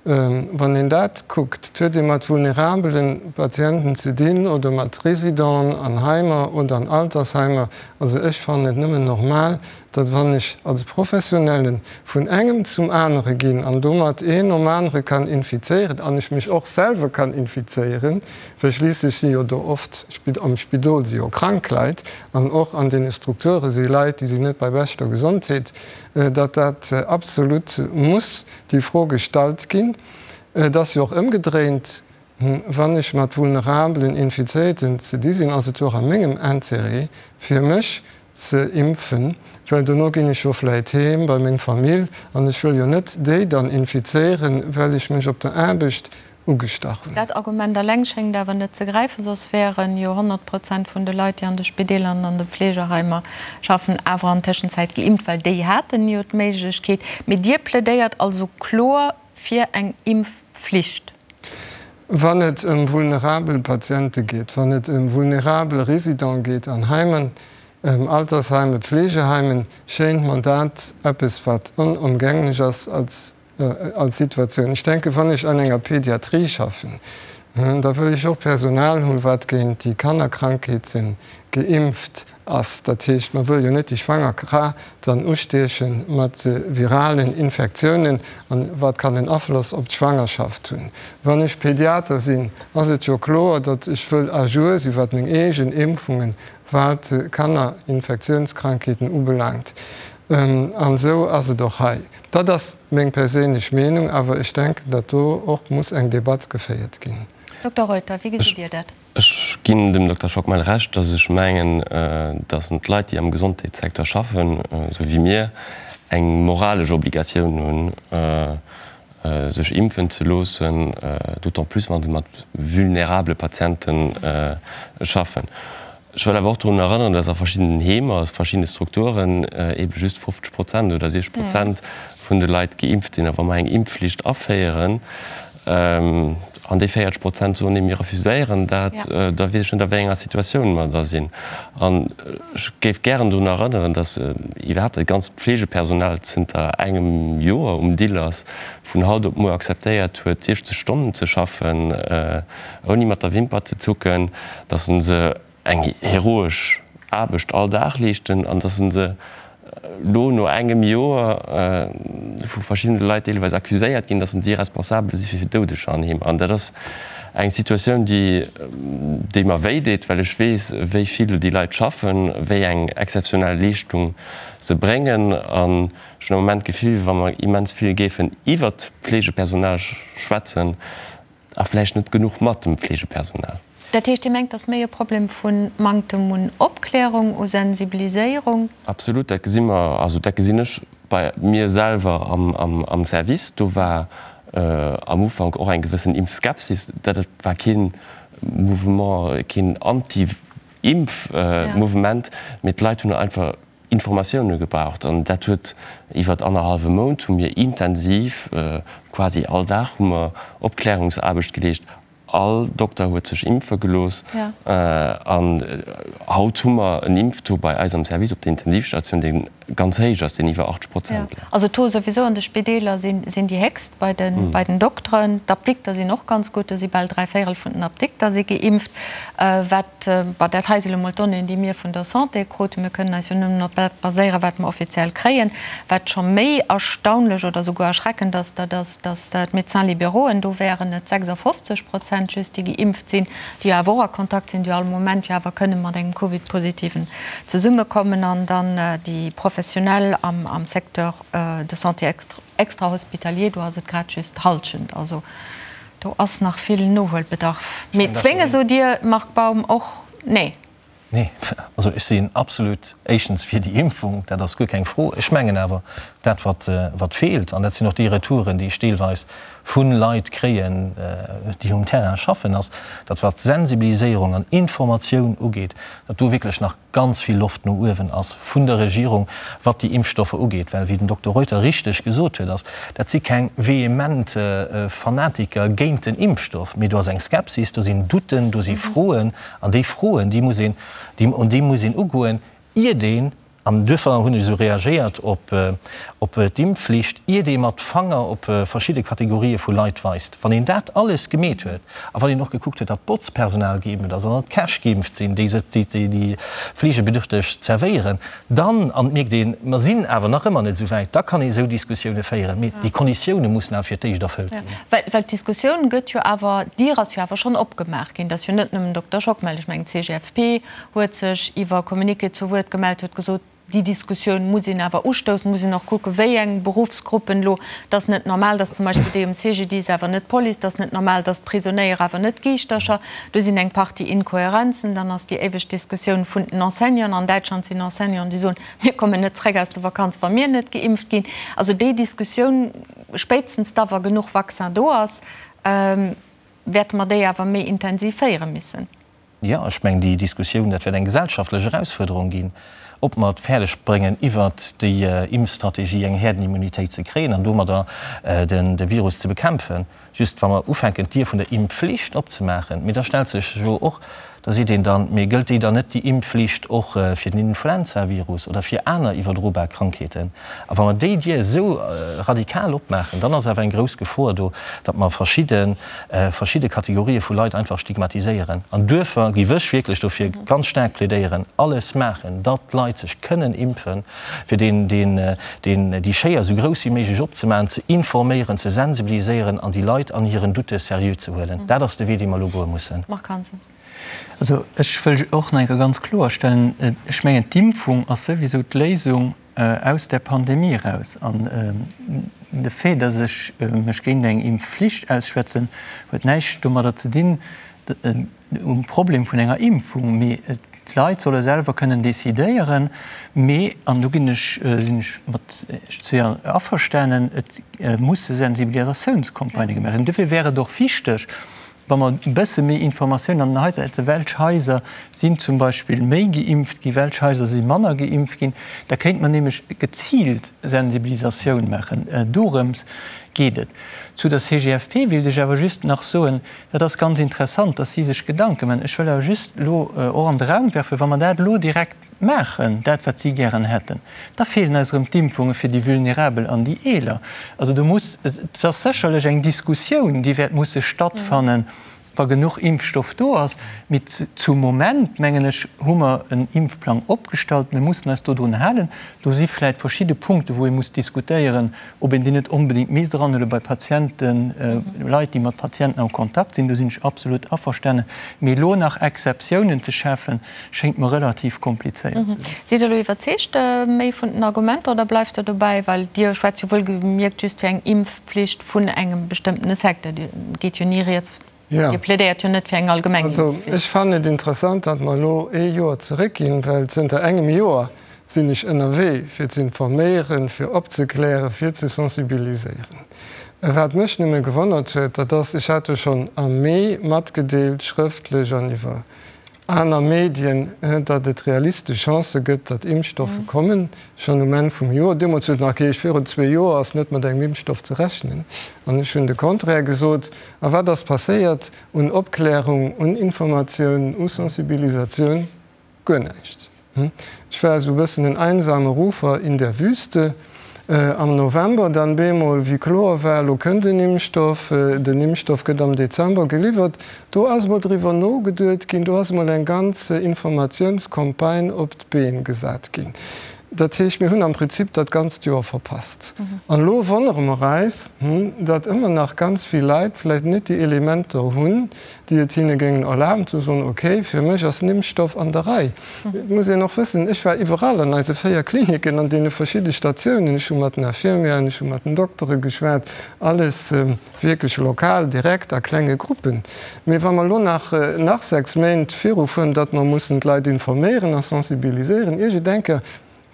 wann een dat kuckt, et huet ee mat vulnerabele Patienten ze dinn oder mat Résidenten an Heimer oder an Altersheimer. Also ech fannen et nëmmen normal, datt wann ech als Professionelle vun engem zum anere ginn an domat een nom anere kann infizéieren an ech mech och selwer kann infizéieren, well schliisslech si jo do oft am Spidol si jo krank Leit, An och an deene Strukture si Leit, déi sinn net bei beschter Gesondheet, datt dat absolut muss déi Fro gestallt ginn. Et ass jo och ëmgedréint. Wann ech mat vulnerabelen Infizéierten ze di sinn, ass et jo och a mengem Intérêt, fir mech ze impfen, well dono ginn ech jo vläit heem bei meng Famill an ech wëll jo net déi dann infizéieren, well ech mech op der Aarbecht ugestach hunn. Dat Argument eleng schéngt awer net ze gräifen, soss wären jo 100 Prozent vun de Leit, déi an de Spideeler an an de Fleegeheimer schaffen, awer an Tëschenzäit geimpft, well déi haten jo d'Méiglechkeet. Mee Dir plädéiert also kloer fir eng Impfflicht. Wann et ëm vulnerabel Patiente geet, wann et ëm vulnerabel Résidents geet an Heimen, Altersheimen, Pflegeheimen, schéint mer dat eppes, wat onomgänglech ass als als Situatioun. Ech denken, wann ech an enger Pédiatrie schaffen, da wëll ech och Personal hunn, wat géint déi Kannerkrankheete geimpft ass. Dat heescht, mer wëlle jo net déi schwanger Fra dann ustieche mat viralen Infektiounen, an wat kann en Afloss op d'Schwangerschaft hunn. Wann ech Pédiater sinn, ass et jo kloer, datt ech wëll à jour sinn, wat meng eegen Impfungen, wat Kannerinfektiounskrankheeten ubelaangt. An esou ass et och hei. Dat ass meng perséinlech Meenung, awer ech denken, datt do och muss eng Debatt geféiert ginn. Dokter Reuter, wéi gesitt Dir dat? Ech ginn dem Dokter Schockmel Recht, datt ech mengen, datt d'Leit, déi am Gesondheetssecteur schaffen, esou wéi mir, eng moralesch Obligatioun hunn, sech impfen ze loossen, d'autant plus wa se mat vulnerabele Patiente schaffen. Ech wëll awer och drun erënneren, dass a verschiddenen Heemer, a verschiddene Strukturen eebe just 50 Prozent oder 60 Prozent vun de Leit geimpft sinn. A wa mer eng Impfflicht aféieren an déi 40 Prozent soen, nee, mir refuséieren dat, da weess ech net, a wéi enger Situatioun mer da sinn. An ech géif gären drun erënneren, dass iwwerhaapt dat ganzt Pflegepersonal zënter engem Joer um Dill ass, vun haut op muer akzeptéiert huet, 60 Stonnen ze schaffen, ouni mat der Wimper ze zucken, dass se eng heroesch Aarbecht all Dag leeschten an dass se elo no engem Joer vu verschiddene Leit deelweis accuséiert ginn, dass si responsabel si fir Doudeger an Heemer. An dat ass eng Situatioun, déi, déi mer wéi deet, well ech weess, wéi vill déi Leit schaffen, wéi eng exzeptionell Leeschtung se bréngen. An ech hunn am Moment d'Gefill, wa mer immens vill géifen iwwert d'Fleegepersonal schwätzen, A vläicht net genuch mat dem Fleegepersonal. Dat heescht, Dir mengt, et ass méi e Problem vu Manktem un Opklärung, u Sensibiliséierung? Absolut, dat gesi mer, also dat gesinn ech bei mir selwer am Service. Do war am Ufank och eng gewëssen Impfskepsis. Dat war kee Mouvement, keen Anti-Impf-Mouvement, mee d'Leit hunn einfach Informatioune gebraucht an dat huet iwwert annerhallwe Mount hu mir intensiv, quasi all Dag hu mer Opklärungsaarbecht geleescht. All Dokter huet sech impfe gelooss an haut hu mer en Impftaux bei eis am Service op der Intensivstatioun, dee ganz héich ass, deen iwwer 80 Prozent läit. Also d'Taux souwisou an de Spideeler sinn déi héchst bei den Dokteren. D'Apdikter sinn och ganz gutt, do si bal dräivéierel vun den Apdikter si geimpft. Wat Bon, dat hei si lo mol d'Donnéeën, déi mir vun der Santé kruten. Mir kënnen eis jo nëmmen op dat baséieren, wat mer offiziell kréien. Wat scho méi erstaunlech oder souguer erschreckend ass, dat ass, datt d'Médecins libérauxen, do wären et 56 Prozent just, déi geimpft sinn, déi jo awer och a Kontakt sinn, déi jo all Moment jo awer kënne mat engem Covid-Positiven zesummekommen. An dann déi Professionell am Secteur de santé extrahospitalier, do ass et grad just d'Hallschent. Also do ass nach vill Nohuelbedarf. Mee zwénge sot Dir, Marc Baum, och nee? Nee, also ech sinn absolut éischtens fir déi Impfung, dat ass guer keng Fro. Ech mengen awer, dat wat wat feelt, an dat sinn och déi Retouren, déi ech deelweis vu Leit kréien, déi um Terrain schaffen, ass, datt wat Sensibiliséierung an Informatioun ugeet, datt do wierklech nach ganz vill Loft no uewen ass vun der Regierung, wat déi Impfstoffer ugeet, well, wéi den Dokter Reuter richteg gesot huet, ass, dat si keng vehement Fanatiker géint den Impfstoff, mee do ass eng Skepsis, do sinn Doutten, do si Froen, an déi Froen, déi muss een, déi muss een ugoen, iert een An duerfir hunn ech esou reagéiert op d'Impfflicht, iert ee mat Fanger op verschidde Kategorië vu Leit weist. Wann een dat alles gemeet huet a wann een och gekuckt huet, datt d'Botzpersonal geimpft ass an datt d'Käch geimpft sinn, déi déi Fleegebedürfteg zerwéieren, dann, an et mierkt een, mer sinn awer nach ëmmer net esou wäit, da kann ee esou Diskussioune féieren. Mee déi Konditioune mussen awer fir d'éischt erfëllt ginn. Well d'Diskussioun gëtt jo awer, d'Dier ass jo awer schonn opgemaach ginn. Et ass jo net nëmmen Dokter Schockmel, ech mengen d'CGFP huet sech iwwer Communiqué zu Wuert gemellt, huet gesot, Déi Diskussioun muss een awer ustoussen, muss een och kucken, wéi eng Beruffsgruppen elo. Et ass net normal, datt zum Beispill déi um CGDIS awer net d'Police, et ass net normal, datt d'Prisonéier awer net d'Giischtercher. Do sinn eng Partie Inkohärenzen. Dann ass déi éiweg Diskussioun vun den Enseignanten. An Däitschland sinn Enseignanten, déi soen, mir kommen net zréck aus der Vakanz, wa mir net geimpft ginn. Also déi Diskussioun, spéitstens da wa genuch Vaccin do ass, wäerte mer déi awer méi intensiv féiere missen. Jo, ech mengen, déi Diskussioun, dat wäert eng gesellschaftlech Erausfuerderung ginn, ob mer et fäerdeg bréngen, iwwert déi Impfstrategie eng Häerdenimmunitéit ze kréien an domadder de Virus ze bekämpfen. Just wa mer ufänken, d'Dier vun der Impfflicht opzemaachen, mee da stellt sech jo och, da seet een dann, mee gëllt déi dann net, déi Impfflicht, och fir den Influenzavirus oder fir aner iwwerdrobar Krankheeten? A wa mer déi Dier esou radikal opmaachen, dann ass awer eng grouss Gefor do, datt mer verschidde verschidde Kategorië vu Leit einfach stigmatiséieren. An duerfir géif ech wierklech dofir ganz staark plädéieren, alles maachen, datt d'Leit sech kënnen impfen, fir deen, deen, deen, déi Schéier esou grouss wéi méiglech opzemaachen, ze informéieren, ze sensibiliséieren an déi Leit an hiren Doutte seriö ze huelen. Dat ass de Wee, dee mer elo goe mussen. Marc Hansen. Also ech wëll och nach eng Kéier ganz kloerstellen, ech mengen d'Impfung ass souwisou d'Léisung aus där Pandemie eraus. An de Fait, datt ech mech géint eng Impfflicht ausschwätzen, huet näischt domadder ze dinn, um Problem vun enger Impfung. Mee d'Leit solle selwer kënnen decidéieren. Mee, an do ginn ech, sinn ech mat Iech zwee averstanen, et musse Sensibilisatiounscampagnë gemaach ginn. Dofir wär et och wichteg, Wa mer e bësse méi Informatioun an den Haiser hätten, welch Haiser sinn zum Beispill méi geimpft ginn, welch Haiser si manner geimpft ginn, da kéinte mer nämlech geziilt Sensibilisatioun maachen. Dorëms geet et. Zu der CGFP wéilt ech awer just nach soen, dat ass ganz interessant, dass si sech Gedanke maachen. Ech wëll awer just elo och an de Raum werfen, wa mer dat elo direkt maachen, dat wat si gären hätten, da feelen eis erëm d'Impfunge fir déi Vulnerabel an déi Eeler. Also do muss, et ass sécherlech eng Diskussioun, déi wäert musse stattfannen, wa genuch Impfstoff do ass. Mee zum Moment, mengen ech, hu mer en Impfplang opgestallt. Mir mussen eis dodrun halen. Do si vläicht verschidde Punkte wou ee muss diskutéieren, ob een déi net onbedéngt misst eranhuele bei Patienten, Leit, déi mat Patienten am Kontakt sinn. Do sinn ech absolut averstanen. Mee elo nach Exceptiounen ze schafen, Schéngt mer relativ komplizéiert ze sinn. Sidd Der elo iwwerzeegt méi vun den Argumenter oder bleift Der dobäi, well Dir schwätzt jo wuelgemierkt just fir eng Impfpflicht vun engem bestëmmtene Secteur. Dir geet jo ni rieds, Dir plädéiert jo net fir eng allgemeng Impfpflicht. Also ech fannen et interessant, datt mer elo ee Joer zeréckginn, well zënter engem Joer sinn ech ënnerwee fir ze informéieren, fir opzeklären, fir ze sensibiliséieren. Wat mech nëmme gewonnert huet, dat ass, ech hat jo schonn am Mee matgedeelt, schrëftlech an iwwer Aner Medien, datt et realistesch Chancë gëtt, datt Impfstoffe kommen, schonn um Enn vum Joer. Deemools huet et nach geheescht, virun zwee Joer ass net mat engem Impfstoff ze rechnen. An ech hunn de Contraire gesot. A wat ass passéiert un Opklärung, un Informatioun, u Sensibilisatioun? Guer näischt. Ech war esou e bëssen en einsame Rufer in der Wüste. Am November dann bemol, wéi kloer war, elo kënnt en Impfstoff, den Impfstoff gëtt am Dezember geliwwert, do ass emol driwwer nogeduet ginn, do ass emol eng ganz Informatiounscampagne op d'Been gesat ginn. Dat heescht, mir hunn am Prinzip dat ganzt Joer verpasst. An elo wonnere mer eis, datt ëmmer nach ganz vill Leit vläicht net déi Elementer hunn, déi et hinne géingen erlaben ze soen, ok, fir mech ass den Impfstoff an der Rei. Et muss een och wëssen, ech war iwwerall an eise 4 Klinicken, an deene verschidde Statiounen, ech hu mat den Infirmieren, ech hu mat den Doktere geschwat, alles wierklech lokal, direkt a klenge Gruppen. Mee wa mer elo nach nach 6 Méint virufueren, datt mer mussen d'Leit informéieren a sensibiliséieren, iergendeng Kéier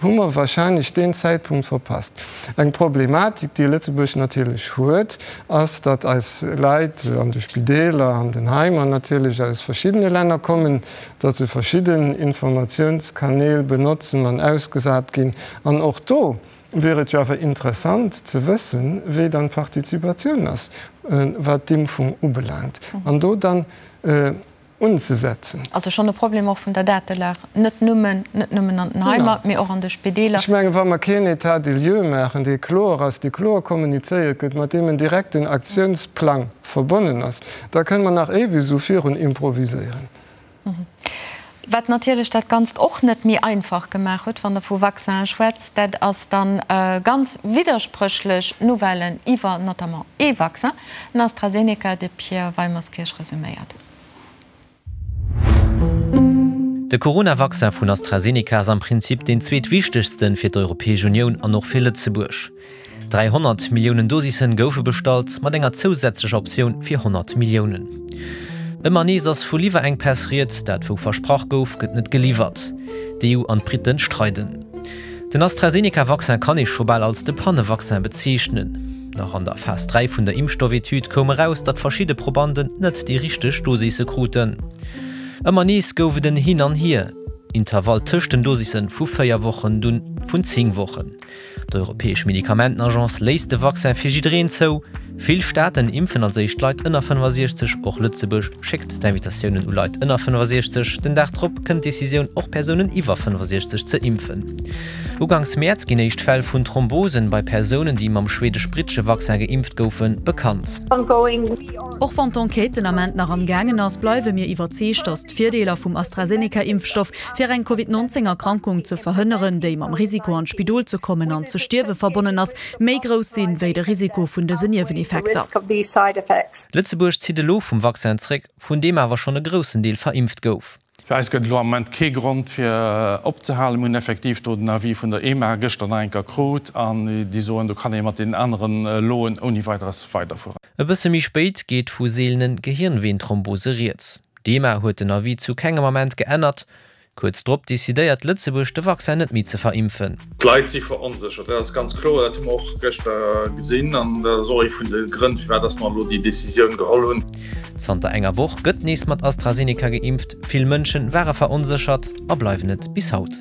hu mer wahrscheinlech deen Zäitpunkt verpasst. Eng Problematik, déi Lëtzebuerg natierlech huet, ass, datt eis Leit an de Spideeler, an den Heimer natierlech aus verschiddene Länner kommen, datt se verschidden Informatiounskanäl benotzen an ausgesat ginn. An och do wier et jo awer interessant ze wëssen, wéi dann d'Partizipatioun ass, wat d'Impfung ubelaangt, an do dann unzesetzen. Also schonn e Problem och vun der Datelag, net nëmmen, net nëmmen an den Heimer, mee och an de Spideeler. Ech mengen, wa mer keen État des lieux maachen, dee kloer ass, dee kloer kommunizéiert gëtt, mat deem en direkten Aktiounsplang verbonnen ass, da kënne mer nach éiweg esou virun improviséieren. Wat natierlech dat Ganzt och net méi einfach gemaach huet, wann Der vu Vaccinen schwätzt, dat ass dann ganz widderspréchlech Nouvellen iwwer notamment ee Vaccin, den AstraZeneca, de Pierre Weimerskirch resuméiert. De Corona-Vaccin vun AstraZeneca ass am Prinzip deen zweetwichtegsten fir d'Europäesch Unioun an och fir Lëtzebuerg. 300 Milliounen Dosissen goufe bestallt, mat enger zousätzlecher Optioun fir 100 Milliounen. Ëmmer nees ass vu Liwwerenkpäss rieds, dat wou versprach gouf, gëtt net geliwwert. D'EU an d'Britten streiden. Den AstraZeneca-Vaccin kann ee scho bal als de Panne-Vaccin bezeechnen. Nach an der Phas 3 vun der Impfstoff-Etüd koum eraus, datt verschidde Probanden net déi richteg Dosisse kruten. Ëmmer nees gouf et en Hin an Hier, Intervall tëscht den Dosisse vu 4 Wochen, dunn vun 10 Wochen. D'Europäesch Medikamentenagence léisst de Vaccin fir jiddereen zou. Vill Staaten impfen als éischt Leit ënner 65. Och Lëtzebuerg schéckt d'Invitatiounen u Leit ënner 65. Den Dag drop kënnt d'Decisioun, och Persounen iwwer 65 ze impfen. Uganks Mäerz ginn éischt Fäll vun Thrombosen bei Persounen, déi mam schweedesch-brittesche Vaccin geimpft goufen, bekannt. Och wann d'Enquête den Ament nach am gaangen ass, bleiwe mir iwwerzeegt, datt d'Virdeeler vum AstraZeneca-Impfstoff fir eng Covid 19 Erkrankung ze verhënneren, déi mam Risiko an d'Spidol ze kommen an ze stierwe verbonnen ass, méi grouss sinn, wéi de Risiko vun dësen Nieweneffekter. Lëtzebuerg zitt elo vum Vaccin zréck, vun deem awer schonn e groussen Deel verimpft gouf. Fir eis gëtt et elo am Moment kee Grond fir opzehalen. Mir hunn effektiv do den Avis vun der EMA gëschter nach eng Kéier krut an déi soen, do kann ee mat deenen anere Loen ouni Weideres weiderfueren. E bësse méi spéit geet vu seelene Gehirnweenthrombose rieds. D'EMA huet den Avis zu kengem Ament geännert. Kuerz drop decidéiert Lëtzebuerg de Vaccin net méi ze verimpfen. D'Leit si veronséchert, dat ass ganz kloer. Dat hu mer och gëschter gesinn an dat ass och ee vun de Grënn, firwat dass mer elo déi Decisioun geholl hunn. Zanter enger Woch gëtt nees mat AstraZeneca geimpft. Vill Mënsche ware veronséchert a bleiwen et bis haut.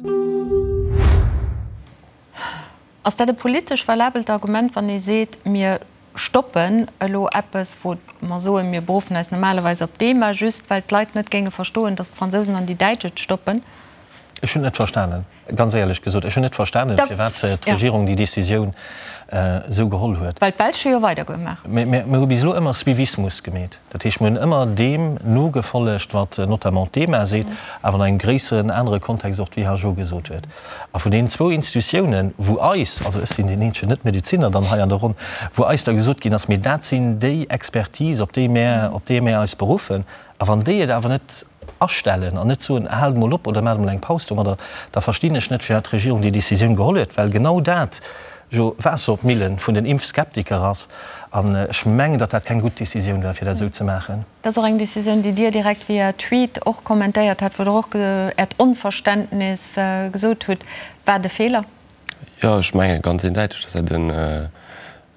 Ass dat e politesch valabelt Argument, wann ee seet, mir stoppen elo eppes, wou mer soen, mir beruffen eis normalerweis op d'EMA, just well d'Leit net géinge verstoen, datt d'Fransousen an déi Däitsch et stoppen? Ech hunn et net verstanen, ganz éierlech gesot. Ech hunn net verstanen, firwat d'Regierung déi Décisioun esou geholl huet. Well d'Belsch hu jo weidergemaach. Mir hu bis elo ëmmer Suivismus gemeet. Dat heescht, mir hunn ëmmer deem nogefollegt, wat notamment d'EMA seet, awer an engem gréisseren anere Kontext och d'WHO gesot huet. A vun deenen zwou Institutiounen, wou eis, also ech sinn deen eenzegen Net-Medezinner dann hei an der Ronn, wou eis da gesot ginn ass, mee dat sinn déi Expertise, op déi mär, op déi mär eis beruffen, a wann déi et awer net astellen an net soen, haalt emol op oder maacht emol eng Paus domadder, da verstinn ech net, firwat d'Regierung déi Décisioun geholl huet, well genau dat jo Waasser op d'Millen vun den Impfskeptiker ass. An ech mengen, datt dat keng gutt Décisioun war, fir dat esou ze maachen. Dat ass och eng Decisioun, déi Dir direkt via Tweet och kommentéiert hat, wou Der och Äert Onverständnis gesot hutt. War et e Feeler? Jo, ech menge ganz eendeiteg, datt dat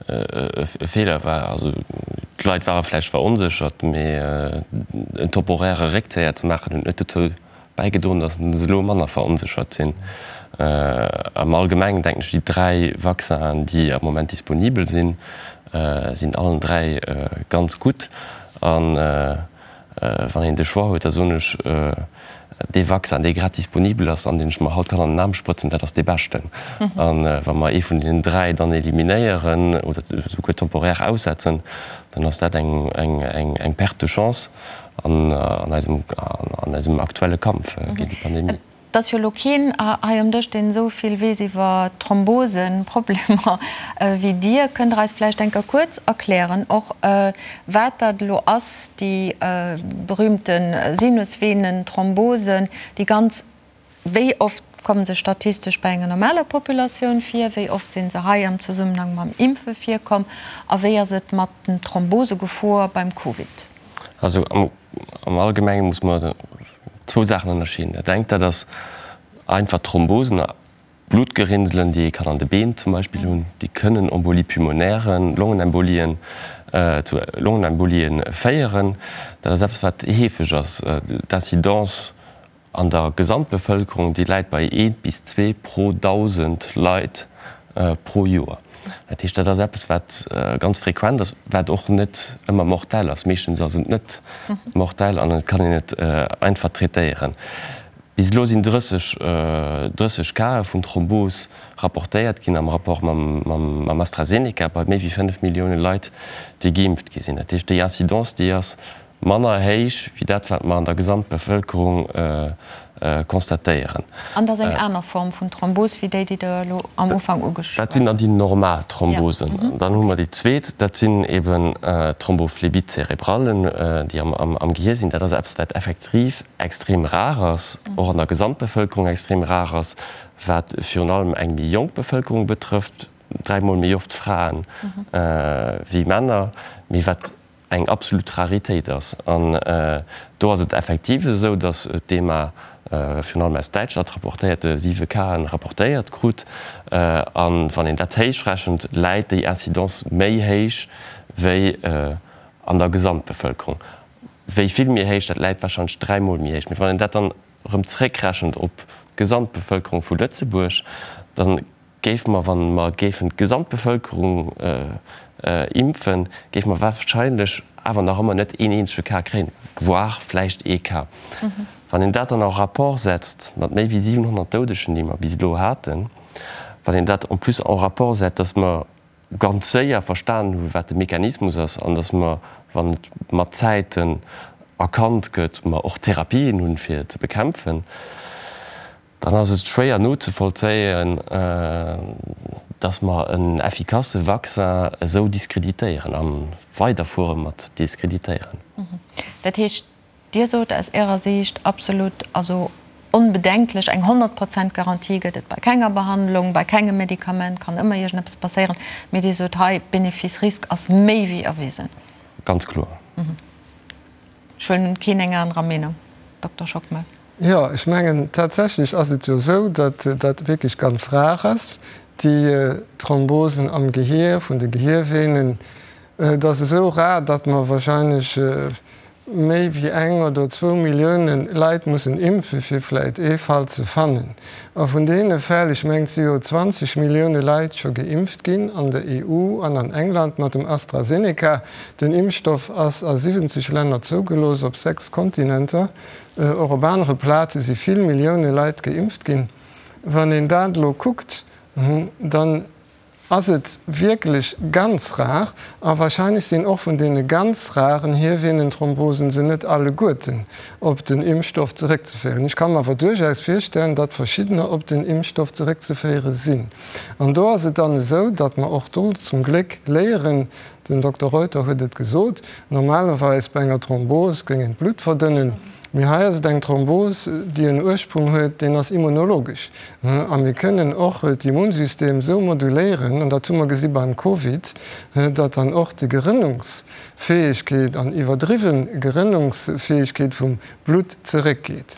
e Feeler war. Also d'Leit ware vläicht veronséchert, mee en temporäre Réckzéier ze maachen, huet net dozou bäigedroen, datt se elo manner veronséchert sinn. Am Allgemengen denken ech, déi 3 Vaccinen, déi am Moment disponibel sinn, sinn allen 3 ganz gutt. A wann een de Choix huet, da soen ech, dee Vaccin, dee grad disponibel ass an deen ech mer haut kann an den Aarm sprëtzen, dat ass dee beschten. A wa mer ee vun deenen 3 dann eliminéieren oder esouguer temporaire aussetzen, dann ass dat eng Perte de chance. an eisem, an eisem aktuelle Kampf géint déi Pandemie. Et ass jo elo keen hei um Dësch, deen esou vill weess iwwer Thrombosenproblemer wéi Dir. Kënnt Der eis vläicht eng Kéier kuerz erklären och, wat dat elo ass, déi berühmte Sinusvenenthrombosen, déi ganz Wéi oft komme se statistesch bei enger normaler Populatioun vir? Wéi oft si se hei am Zesummenhang mam Impfe virkomm? A wéi ass et mat den Thrombosegefor beim Covid? Also am Allgemenge muss mer zwou Saachen ënnerscheeden. Dat engt, dat ass einfach Thrombosen, Bluttgerinnselen, déi ee kann an de Been zum Beispill hunn, déi kënnen Embolie pulmonairen, Longenembolien, zu Longenembolien féieren. Dat ass eppes, wat heefeg ass. D'Incidence An der Gesamtbevëlkerung, déi läit bei eent bis zwee pro 1.000 Leit pro Joer. Dat heescht, dat ass eppes, wat ganz frequent ass, wat och net ëmmer mortell ass. Meeschtens ass et net mortell an et kann een et einfach traitéieren. Bis elo sinn 30, 30 Cae vun Thrombos rapportéiert ginn am Rapport mam AstraZeneca bei méi wéi 5 Millioune Leit, déi geimpft gi sinn. Dat heescht, déi Incidence, déi ass manner héich wéi dat, wat mer an der Gesamtbevëlkerung. Constatéieren. An dat ass eng aner Form vun Thrombos wéi déi, déi Der elo am Ufank ugeschwat Dat sinn dann déi normal Thrombosen. Dann hu mer déi zweet, dat sinn eben d'Thrombophlébite cérébrale, déi am Gehier sinn. Dat ass eppes, wat effektiv extrem rar ass, och an der Gesamtbevëlkerung extrem rar ass, wat virun allem eng méi jonk Bevëlkerung betrëfft, dräimol méi oft Fraen wéi Männer, mee wat eng absolut Raritéit ass. An do ass et effektiv esou, datt d'EMA virun allem aus Däitschland rapportéiert, siwe Casen rapportéiert krut. A wann een dat héichrechent, läit déi Incidence méi héich wéi an der Gesamtbevëlkerung. Wéi vill méi héich? Dat läit warscheinlech dräimol méi héich. Mee wann een dat dann erëm zréckrechent op d'Gesamtbevëlkerung vu Lëtzebuerg, da Géife mer, wa mer géifen d'Gesamtbevëlkerung impfen, géife mer wahrscheinlech awer nach ëmmer net een eenzege Cas kréien, voire vläicht ee Cas. Wann een dat dann en rapport setzt mat méi wéi 700 Doudegen, déi mer bis elo haten, wann een dat en plus en rapport setzt, dass mer ganz séier verstanen hu wat de Mechanismus ass an dass mer, wann et mat Zäiten erkannt gëtt, mer och Therapien hunn, fir et ze bekämpfen, Dann ass et schwéier nozevollzéien, dass mer en effikasse Vaccin esou diskreditéieren a weiderfuere mat diskreditéieren. Dat heescht, Dir sot aus Ärer Siicht absolut, also onbedenklech, eng 100 Prozent Garantie gëtt et bei kenger Behandlung, bei kengem Medikament, kann ëmmer iergendeppes passéieren, mee Dir sot hei, Bénéfice-Risque ass méi wéi erwisen. Ganz kloer. Ech huelen un, keen eng anerer Meenung, Dokter Schockmel. Jo, ech mengen, tatsächlech ass et jo esou, datt dat wierklech ganz rar ass, déi Thrombosen am Gehier, vun de Gehiervenen. Et ass esou rar, datt mer wahrscheinlech méi wéi eng oder zwou Millioune Leit mussen impfen, fir vläicht ee Fall ze fannen. A vun deene Fäll, ech mengen, et si jo 20 Millioune Leit scho geimpft ginn an der EU an an England mat dem AstraZeneca. Den Impfstoff ass a 70 Länner zougelooss, op 6 Kontinenter. Och op anere Plaze si vill Millioune Leit geimpft ginn. Wann een dat elo kuckt, dann ass et wierklech ganz rar. A wahrscheinlech sinn och vun deene ganz raren Hiervenenthrombosen se net alleguerten op den Impfstoff zeréckzeféieren. Ech ka mer awer duerchaus virstellen, datt verschiddener op den Impfstoff zeréckzeféiere sinn. An do ass et dann esou, datt mer och do zum Gléck léieren, Den Dokter Reuter huet et gesot, normalerweis bei enger Thrombos géing een d'Blutt verdënnen, mee hei ass et eng Thrombos, déi en Ursprung huet, deen ass immunologesch. A mir kënnen och d'Immunsystem esou moduléieren, an dat hu mer gesi beim Covid, datt dann och déi Gerënnungsfäegkeet an iwwerdriwwe Gerënnungsfäegkeet vum Blutt zeréckgeet.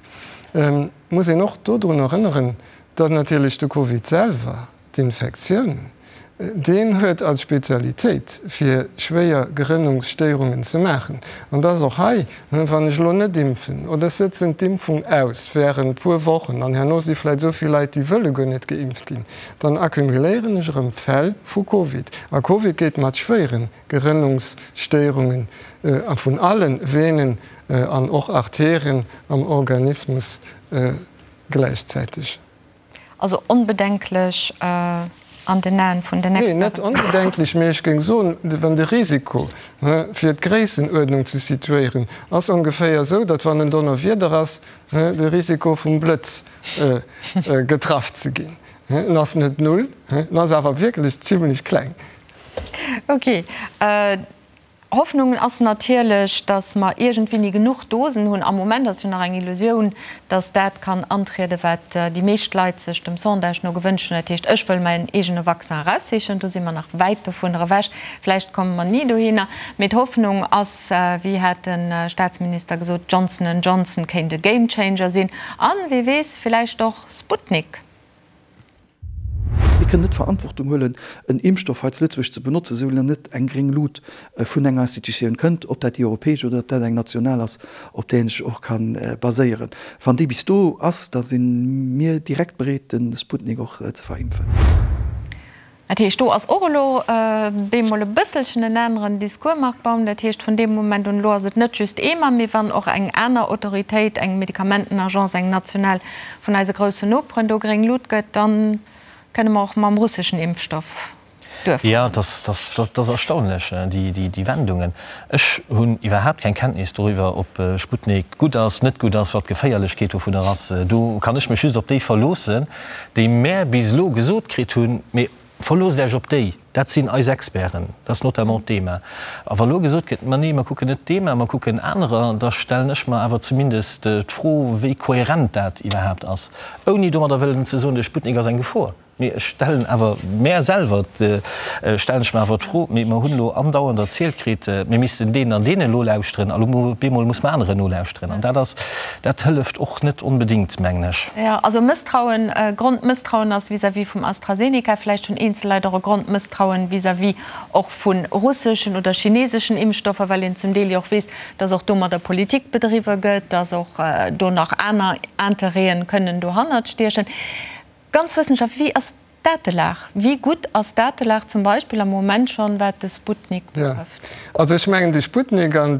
Et muss een och dodrun erënneren, datt natierlech de Covid selwer, D'Infektioun, deen huet als Spezialitéit, fir schwéier Gerënnungsstéierungen ze maachen. An dass och hei, wann ech elo net impfen oder ech sëtzen d'Impfung aus während puer Wochen an herno si vläicht esou vill Leit, déi wëlle guer net geimpft ginn, dann accumuléieren ech erëm Fäll vu Covid. A Covid geet mat schwéiere Gerënnungsstéierungen vun alle Venen an och Arterien am Organismus gläichzäiteg. Also onbedenklech an den Aen vun den Experten? Nee, net onbedenklech, mee ech géing soen, wann de Risiko, fir d'Gréissenuerdnung ze situéieren, ass ongeféier esou, datt wann en Donnerwieder ass, de Risiko vum Blëtz getraff ze ginn, en ass net null, en ass awer wierklech zimlech kleng. Okay. Hoffnung ass natierlech, datt mer iergendwéini genuch Dosen hunn. Am Moment ass jo nach eng Illusioun, datt dat kann antrieden, wat déi meescht Leit sech dem Sondage no gewënscht hunn, dat heescht, ech wëll mäin eegene Vaccin eraussichen. Do si mer nach wäit dovunner ewech. Vläicht komme mer ni dohinner. Mee d'Hoffnung ass, wéi hat de Staatsminister gesot, Johnson and Johnson kéint e Gamechanger sinn. An, wie weess, villäicht och Sputnik. Mir kënnen net d'Verantwortung huelen, en Impfstoff hei zu Lëtzebuerg ze benotzen, soulaang net eng gréng Lut vun enger Institutioun kënnt, ob dat déi europäesch oder ob dat eng national ass, op där ee sech och ka baséieren. Wann déi bis do ass, da si mir direkt bereet, de Sputnik och ze verimpfen. Dat heescht, do ass och elo bemol e bësselchen en aneren Discours, Marc Baum. Dat heescht, vun deem Moment un, elo ass et net just EMA, mee wann och eng aner Autoritéit, eng Medikamentenagence, eng national vun eise groussen Noperen do gréng Lut gëtt, da kënne mer och mam russeschen Impfstoff. Duerfir. Jo, dat ass erstaunlech, déi Wendungen. Ech hunn iwwerhaapt keng Kenntnis doriwwer, ob Sputnik gutt ass, net gutt ass, wat d'Geféierlechkeet dovunner ass. Do kann ech mech just op déi verloossen, déi mär bis elo gesot kritt hunn. Mee verloosst Iech op déi, dat sinn eis Experten, dat ass notamment d'EMA. A wa elo gesot gëtt, ma nee, mer kucken net d'EMA, mer kucken anerer, da stellen ech mer awer zumindest d'Fro, wéi kohärent dat iwwerhaapt ass, ouni domadder wëllen ze soen, de Sputnik ass eng Gefor. Mee ech stellen awer mär selwer, stellen ech mer awer d'Fro, mee mer hunn elo andauernd erzielt kritt, mir missten deenen an deenen nolauschteren, a lo op eemol muss mer aneren nolauschteren. An dat ass, dat hëlleft och net onbedéngt, mengen ech. Jo, also Mësstrauen, Grondmësstrauen ass vis-à-vis vum AstraZeneca. Vläicht hunn eenzel Leit och e Grondmësstrauen vis-à-vis och vu russeschen oder chineseschen Impfstoffer, well een zum Deel jo och weess, dass och domadder Politik bedriwwe gëtt, dass och do nach aner Interêten kënnen dohannert stiechen. Ganz wëssenschaftlech, wéi ass d'Datelag? Wéi gutt ass d'Datelag zum Beispill am Moment schonn, wat de Sputnik betrëfft? Jo, also ech mengen de Sputnik an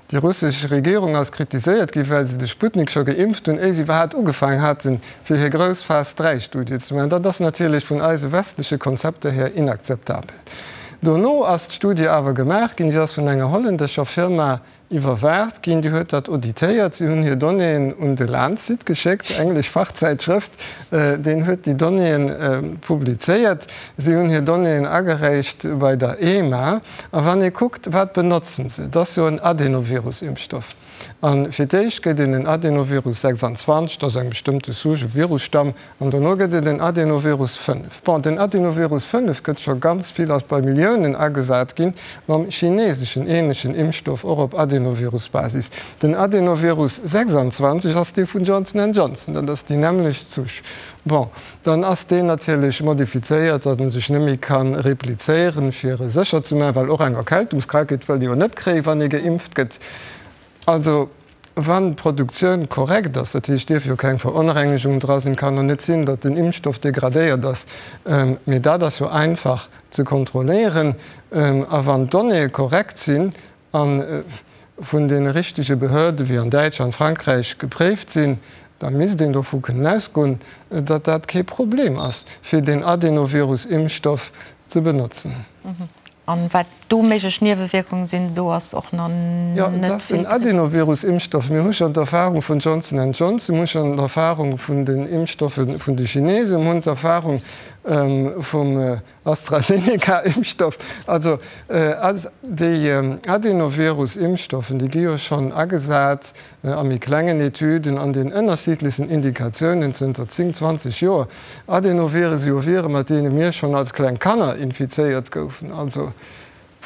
déi russesch Regierung ass kritiséiert ginn, well se de Sputnik scho geimpft hunn, éier se iwwerhaapt ugefaangen haten, fir hir grouss Phas III-Studie ze maachen. Dat ass natierlech vun eise westleche Konzepter hier inakzeptabel. Dono ass d'Studie awer gemaach ginn, si ass vun enger hollännescher Firma Iwwerwaacht ginn. Déi huet dat auditéiert. Si hunn hir Donnéeën un de Lancet geschéckt, englesch Fachzäitschrëft. Deen huet déi Donnéeën publizéiert. Si hunn hir Donnéeën agereecht bei der EMA. A wann ee kuckt, wat benotzen se, et ass jo en Adenovirus-Impfstoff. A fir d'éischt gëtt een en Adenovirus 26, dat ass eng bestëmmte Souche, e Virusstamm, An dono gëtt et en Adenovirus 5. Bon, den Adenovirus 5 gëtt scho ganz vill, ass bei Milliounen agesat ginn, mam chineseschen ähnlechen Impfstoff, och op Adenovirus-Basis. Den Adenovirus 26 ass dee vun Johnson and Johnson, dat ass déi nämmlecht Souche. Bon, dann ass deen natierlech modifizéiert, datt en sech net méi ka replizéieren, fir e sécher ze maachen, well och eng Erkältungskrankheet wëllt ee jo net kréien, wann ee geimpft gëtt. Also, wann d'Produktioun korrekt ass, dat heescht, dierf jo keng Veronrengegung dra sinn, kann och net sinn, datt den Impfstoff degradéiert ass, mee dat ass jo einfach ze kontrolléieren, a wann d'Donnéeë korrekt sinn a vun deene richtege Behörde wéi an Däitschland, Frankräich gepréift sinn, da misst een dovu kënnen ausgoen, datt dat kee Problem ass, fir deen Adenovirus-Impfstoff ze benotzen. An wat do méiglech Niewewierkungen sinn, do ass och nach net vill Jo, et ass en Adenovirus-Impfstoff. Mir hu schonn d'Erfahrung vun Johnson and Johnson, mir hu schonn d'Erfahrung vun den Impfstoffe vun de Chinesen, mir hunn d'Erfahrung vum AstraZeneca-Impfstoff. Also déi Adenovirus-Impfstoffen, déi gi jo schonn agesat a méi klengen Etüden an den ënnerschiddlechsten Indikatiounen zënter 10, 20 Joer. Adenoviren si jo Vire mat deene mir schonn als kleng Kanner infizéiert goufen. Also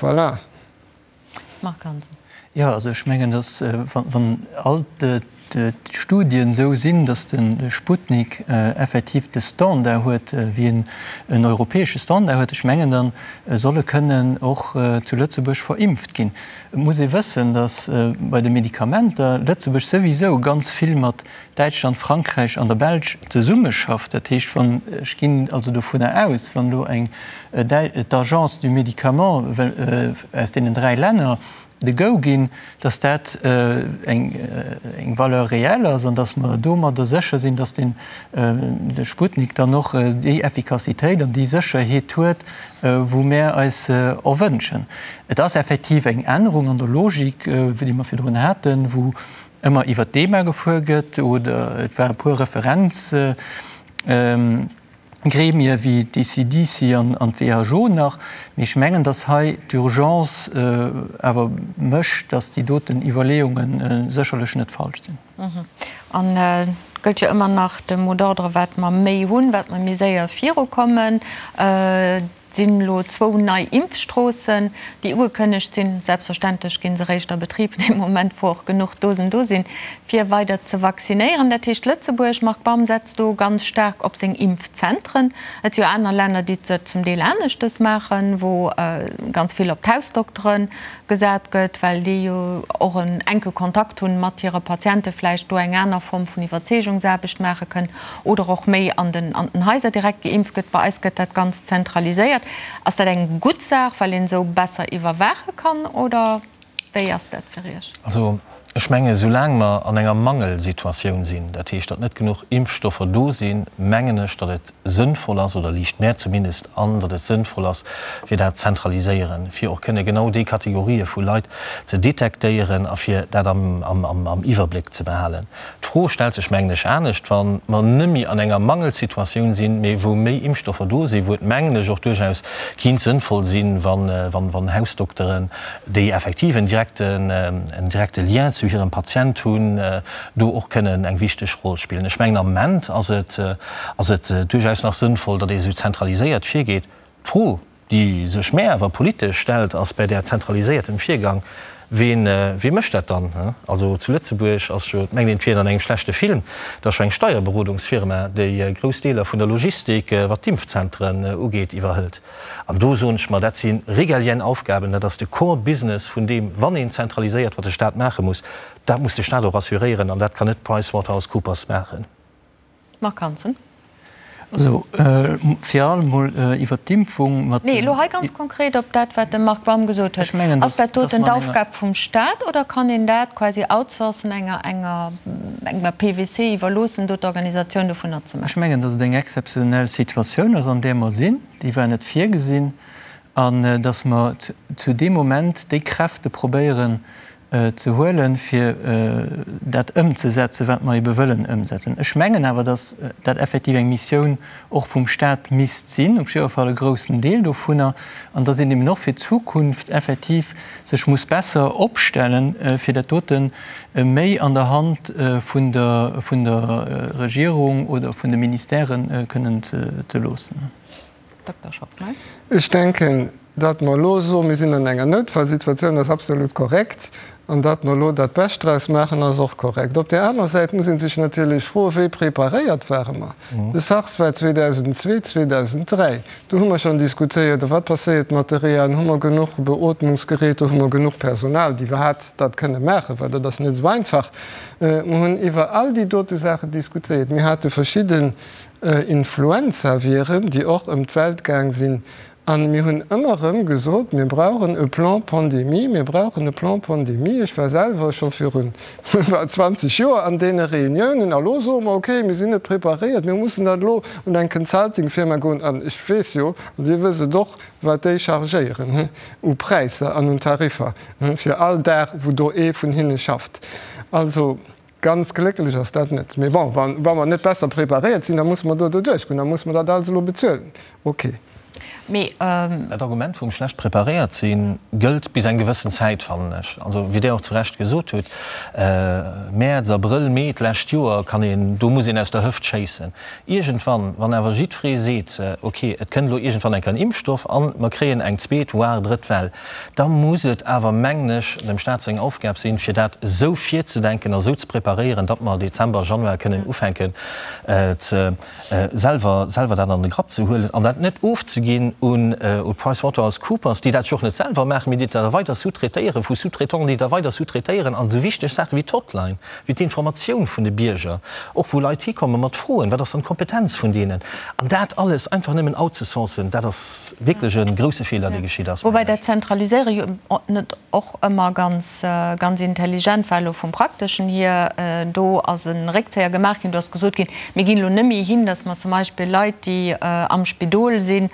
voilà. Marc Hansen. Jo, also ech mengen, datt wann all d'Studien esou sinn, datt de Sputnik effektiv de Standard huet, wéi en en europäesche Standard huet, ech mengen, da soll e kënnen och zu Lëtzebuerg verimpft ginn. Et muss ee wëssen, datt bei de Medikamenter Lëtzebuerg souwisou ganz vill mat Däitschland, Frankräich an der Belsch zesummeschafft. Dat heescht, wann, ech ginn also dovunner aus, wann elo eng d'Agence du Médicament aus deenen 3 Länner de Go ginn, datt dat eng Valeur réelle ass an datt mer domadder sécher sinn, datt den de Sputnik dann och déi Effikassitéit an déi Sécherheet huet, wou mär eis erwënschen. Et ass effektiv eng Ännerung an der Logik, déi mer virdrun haten, wou ëmmer iwwert d'EMA gefuer gëtt oder et ware puer Referenzgremie wéi d'ECDC an d'WHO nach. Mee ech mengen, datt hei d'Urgence awer mécht, datt déi doten Iwwerleeunge sécherlech net falsch sinn. An et gëllt jo ëmmer nach de Mot d'ordre, wat mer méi hunn, wat mer méi séier virukommen. Et sinn elo zwou nei Impfstroossen, déi ugekënnegt sinn. Selbstverständlech gi se eréischt a Betrib dee Moment, wou och genuch Dosen do sinn, fir weider ze vaccinéieren. Dat heescht, Lëtzebuerg, Marc Baum, setzt do ganz staark op seng Impfzentren. Et si jo aner Länner, déi dat zum Deel aneschtes maachen, wou ganz vill op d'Hausdoktere gesat gëtt, well déi jo och en enke Kontakt hunn mat hire Patienten, vläicht do eng aner Form vun Iwwerzeegungsaarbecht maache kënnen oder och méi an den an den Haiser direkt geimpft gëtt. Bei eis gëtt dat Ganzt zentraliséiert. Ass dat eng gutt Saach, well een esou besser iwwerwaache kann, oder wéi ass dat fir Iech? Also. Ech mengen, soulaang mer an enger Mangelsituatioun sinn, dat heescht, datt net genuch Impfstoffer do sinn, mengen ech, datt et sënnvoll ass, oder liicht mär zumindest an, datt et sënnvoll ass, fir dat zentraliséieren, fir och kënne genau déi Kategorië vu Leit ze detektéieren a fir dat am Iwwerbléck ze behalen. D'Fro stellt sech, mengen ech, anescht, wa mer nëmme an enger Mangelsituatioun sinn, mee wou méi Impfstoffer do sinn, wou et, mengen ech, och duerchaus kinnt sënnvoll sinn, wann Hausdokteren, déi effektiv en direkten, en direkte Lien zu hirem Patient hunn, do och kënnen eng wichteg Roll spillen. Ech mengen, am Ament ass et, ass et duerchaus nach sënnvoll, datt ee esou zentraliséiert virgeet. D'Fro, déi sech mär awer politesch stellt, ass bei där zentraliséiertem Virgang, Ween, wee mécht dat dann? Also zu Lëtzebuerg ass jo, et mengt een, et wier an engem schlechte Film, et ass jo eng Steierberodungsfirma, déi grouss Deeler vun der Logistik, wat d'Impfzentren ugeet, iwwerhëlt. An do soen ech mer, dat si régalienne Aufgaben, dat ass de Core Business vun deem, wann een zentraliséiert, wat de Stat maache muss, dat muss de Stat och assuréieren an dat kann net PricewaterhouseCoopers maachen. Marc Hansen. Also fir allem emol iwwert d'Impfung mat. Nee, elo hei ganz konkret op dat, wat de Marc Baum gesot huet. Ass dat doten d'Aufgab vum Stat oder kann een dat quasi outsourcen, enger, enger, enger PwC iwwerloossen, do d'Organisatioun dovunner ze maachen? Ech mengen, datt et eng exzeptionell Situatioun ass, an där mer sinn. Déi war net virgesinn. An datt mer zu deem Moment déi Kräfte probéieren ze huelen, fir dat ëmzesetzen, wat mer ebe wëllen ëmsetzen. Ech mengen awer, datt dat effektiv eng Missioun och vum Stat misst sinn, op jidder Fall e groussen Deel dovunner, an datt een eben och fir d'Zukunft effektiv sech muss besser opstellen, fir dat dote méi an der Hand vun der vun der Regierung oder vun de Ministèrë kënnen ze loossen. Dokter Schockmel. Ech denken, datt mer elo soen, mir sinn an enger Noutfallsituatioun, ass absolut korrekt. An datt mer elo dat Bescht draus maachen, ass och korrekt. Op där aner Säit muss ee sech natierlech froen, Wéi preparéiert ware mer? De SARS war 2002, 2003. Do hu mer schonn diskutéiert, A wat passéiert mat de Rehaen? Hu mer genuch Beootmungsgeräter? Hu mer genuch Personal, déi iwwerhaapt dat kënne maachen? Well dat ass net esou einfach. Mer hunn iwwer all déi dote Saachen diskutéiert. Mir hate verschidde Influenzaviren, déi och ëm d'Welt gaang sinn. A mir hunn ëmmer erëm gesot, mir brauchen e Plan pandémie, mir brauchen e Plan pandémie. Ech war selwer scho virun bal 20 Joer an deene Reuniounen. A lo soe mer, okay, mir sinn net preparéiert, mir mussen dat elo un eng Consultingfirma goen. An ech weess jo, an Dir wësst et och, wat déi chargéieren u Präisser an un Tariffer fir all Dag, wou do ee vun hinne schafft. Also, Ganz glécklech ass dat net. Mee bon, wa mer net besser preparéiert sinn, da musse mer do doduerch goen, da musse mer dat alles elo bezuelen. Okay. Mee. Dat Argument vum schlecht preparéiert sinn gëllt bis eng gewëssen Zäit, fannen ech. Also, wéi Dir och zu Recht gesot hutt, Mäerz, Abrëll, Mee d'lescht Joer kann een, do muss een aus der Hëft schéissen. Iergendwann, wann awer jiddweree seet, okay, et kënnt elo iergendwann eng Kéier en Impfstoff an mer kréien eng zweet, voire drëtt Well, Da muss et awer, mengen ech, dem Stat seng Aufgab sinn, fir dat esou virzedenken a esou ze preparéieren, datt mer Dezember, Januar kënnen ufänken ze selwer selwer dat an de Grapp ze huelen an dat net ofzeginn un PricewaterhouseCoopers, déi dat jo och net selwer maachen, mee déi dat da weider sous-traitéieren, vu Sous-traitants, déi da weider sous-traitéieren an esou wichteg Saache wéi d'Hotline, wéi d'Informatioun vun de Bierger, och wou Leit hikomme mat Froen, wat ass dann d'Kompetenz vun deenen? An dat alles einfach nëmmen outzesourcen, dat ass wierklech e grouse Feeler, dee geschitt ass, Woubäi mengen ech. dat Zentraliséiere jo net och ëmmer ganz, ganz intelligent war, elo vum Prakteschen hier. Do ass e Réckzéier gemaach ginn, do ass gesot ginn, mir ginn elo net méi hin, datt mer zum Beispill Leit, déi am Spidol sinn,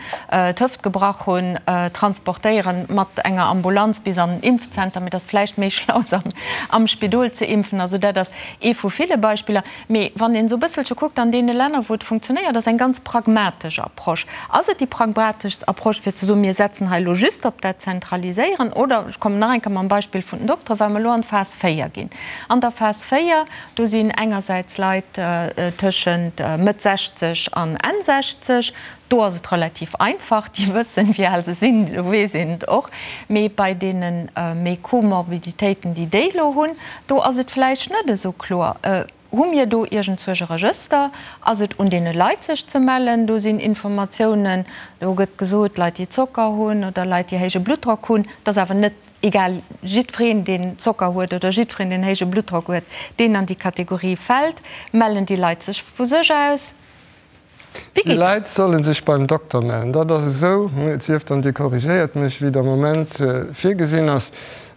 d'Hëft gebrach hunn, transportéieren mat enger Ambulanz bis an den Impfzenter, mee et ass vläicht méi schlau, se am Spidol ze impfen. Also dat ass ee vu ville Beispiller. Mee wann een esou e bësselche kuckt an deene Länner, wou et funktionéiert, ass eng ganz pragmatesch Approche. Ass et déi pragmateschst Approche, fir ze soen, mir setzen hei elo just op dat Zentraliséieren? Oder, ech kommen nach eng Kéier mam Beispill vun den Dokteren, well mer elo an d'Phas 4 ginn. An der Phas 4, do sinn engersäits Leit tëschent Mëtt 60 an Enn 60, Do ass et relativ einfach, déi wëssen, wéi al se sinn, do weess een et och. Mee bei deene méi Comorbiditéiten, déi déi elo hunn, do ass et vläicht net esou kloer. Hu mir do iergendzwousch e Regëster? Ass et un deene Leit, sech ze mellen? Do sinn Informatiounen, do gëtt gesot, Leit, déi Zocker hunn oder Leit, déi héije Bluttdrock hunn. Et ass awer net egal, jiddwereen, deen Zocker huet oder jiddwereen, deen héije Bluttdrock huet, deen an déi Kategorie fält. Mellen déi Leit sech vu sech aus? Wéi Déi geet dat? Leit solle sech beim Dokter mellen. Dat ass esou, et sief dann Dir korrigéiert mech, wéi et am Moment virgesinn ass.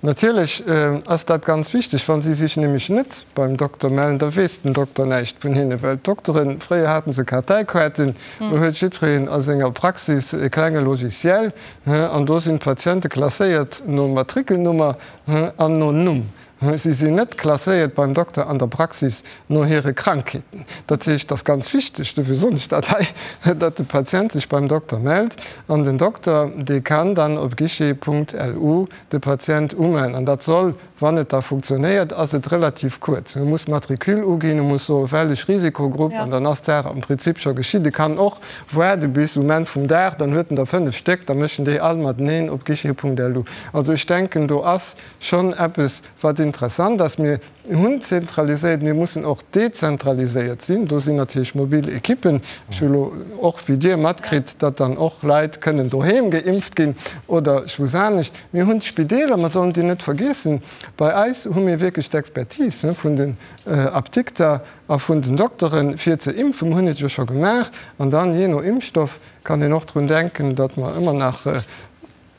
Natierlech ass dat ganz wichteg. Wa si sech nämlech net beim Dokter mellen, da weess den Dokter näischt vun hinne, well d'Dokteren, fréier hate se Karteikaarten, elo huet jiddwereen a senger Praxis e klenge Logiciel an do sinn d'Patiente klasséiert no Matrikelnummer an no Numm. Si sinn net klasséiert beim Dokter an der Praxis no hire Krankheeten. Dat heescht, et ass ganz wichteg, dofir soen ech dat hei, datt de Patient sech beim Dokter mellt an den Dokter, dee kann dann op guichet.lu de Patient umellen. An dat soll, wann et da funktionéiert, ass et relativ kuerz. E muss d'Matricule uginn, e muss soen, wellech Risikogrupp, an dann ass d'Saach am Prinzip scho geschitt. E kann och waarde bis um Enn vum Dag, dann huet en der 5 Stéck, da mécht en déi all mateneen op guichet.lu. Also ech denken, do ass schonn eppes, wat interessant ass. Mir hunn zentraliséiert, mir mussen och dezentraliséiert sinn. Do sinn natierlech mobil Ekippen. Ech hu elo och wéi Dir matkritt, datt dann och Leit kënnen doheem geimpft ginn oder ech weess anescht. Mir hunn d'Spideeler, mer sollen déi net vergiessen. Bei eis hu mir wierklech d'Expertise vun den Apdikter a vun den Dokteren, fir ze impfen. Mir hunn et jo scho gemaach. An dann, jee no Impfstoff, kann een och drun denken, datt mer ëmmer nach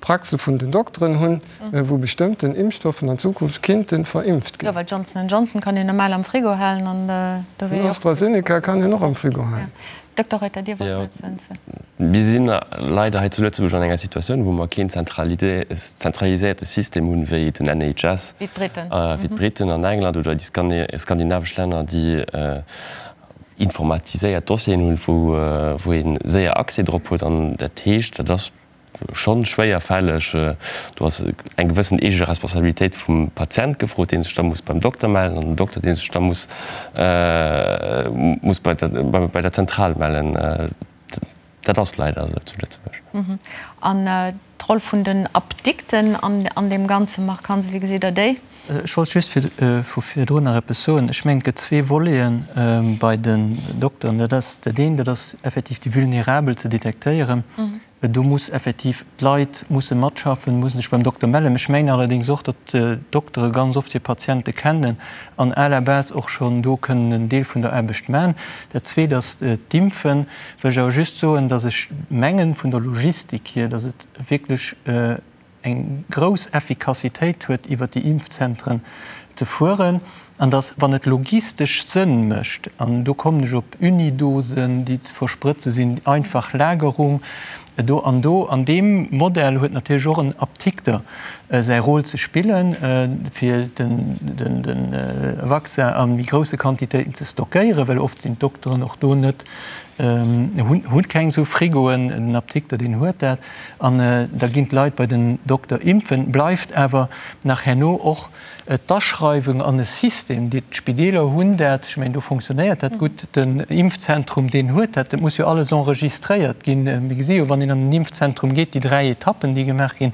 Praxe vun den Dokteren hunn, wou bestëmmten Impfstoffen an Zukunft kinnten verimpft ginn. Jo, well Johnson and Johnson kann een normal am Frigo halen an do wier jo och. AstraZeneca kann een och am Frigo halen. Dokter Reuter, Dir wollt nach eppes ergänzen? Mir sinn leider hei zu Lëtzebuerg an enger Situatioun, wou mer keen zentraliséierte System hunn, wéi den NHS, wéi d'Briten, wéi d'Briten an England oder déi skandinavesch Länner, déi informatiséiert Dossieren hunn, wou ee séier Accès drop huet. An dat heescht, dat ass schonn schwéierfälleg. Do ass eng gewëssen eege Responsabilitéit vum Patient gefrot, dee sech da muss beim Dokter mellen, an den Dokter, dee sech da muss muss bei der bei der Zentral mellen. Dat ass leider esou zu Lëtzebuerg. An d'Roll vun den Apdikten an deem Ganzen, Marc Hansen, wéi gesitt Der déi? Ech wollt just vu virdrun nach eppes soen. Ech mengen, et gëtt zwee Voleten bei den Dokteren. Dat ass dat eent, dat ass effektiv déi Vulnerabel ze detektéieren. Do muss effektiv, d'Leit musse matschaffen, musse sech beim Dokter mellen. Ech mengen allerdéngs och, datt d'Doktere ganz oft hir Patiente kennen an à la base och schonn do kënnen en Deel vun der Aarbecht man. Dat Zweet ass d'Impfen. Wëll ech awer just soen, datt ech mengen, vun der Logistik hier, datt et wierklech eng grouss Effikassitéit huet, iwwert déi Impfzentren ze fueren, an dass, wann et logistesch Sënn mécht, an do kommen ech op Unidosen, déi ze versprëtze sinn, einfach Lagerung do an do, an deem Modell huet natierlech och en Apdikter säi Rôle ze spillen, fir de Vaccin a méi grousse Quantitéiten ze stockéieren, well oft sinn d'Dokteren och do net, hunn keng esou Frigoen, den Apdikter, deen huet dat. An da ginn d'Leit bei den Dokter impfen. Bleift awer nach herno och d'Aschreiwung an e System. Déi d'Spideeler hunn dat, ech mengen do fonctionnéiert dat gutt. Den Impfzentrum, deen huet dat. Dat muss jo alles enregistréiert ginn. Mir gesi jo, wann een an den Impfzentrum geet, déi 3 Etappen, déi gemaach ginn.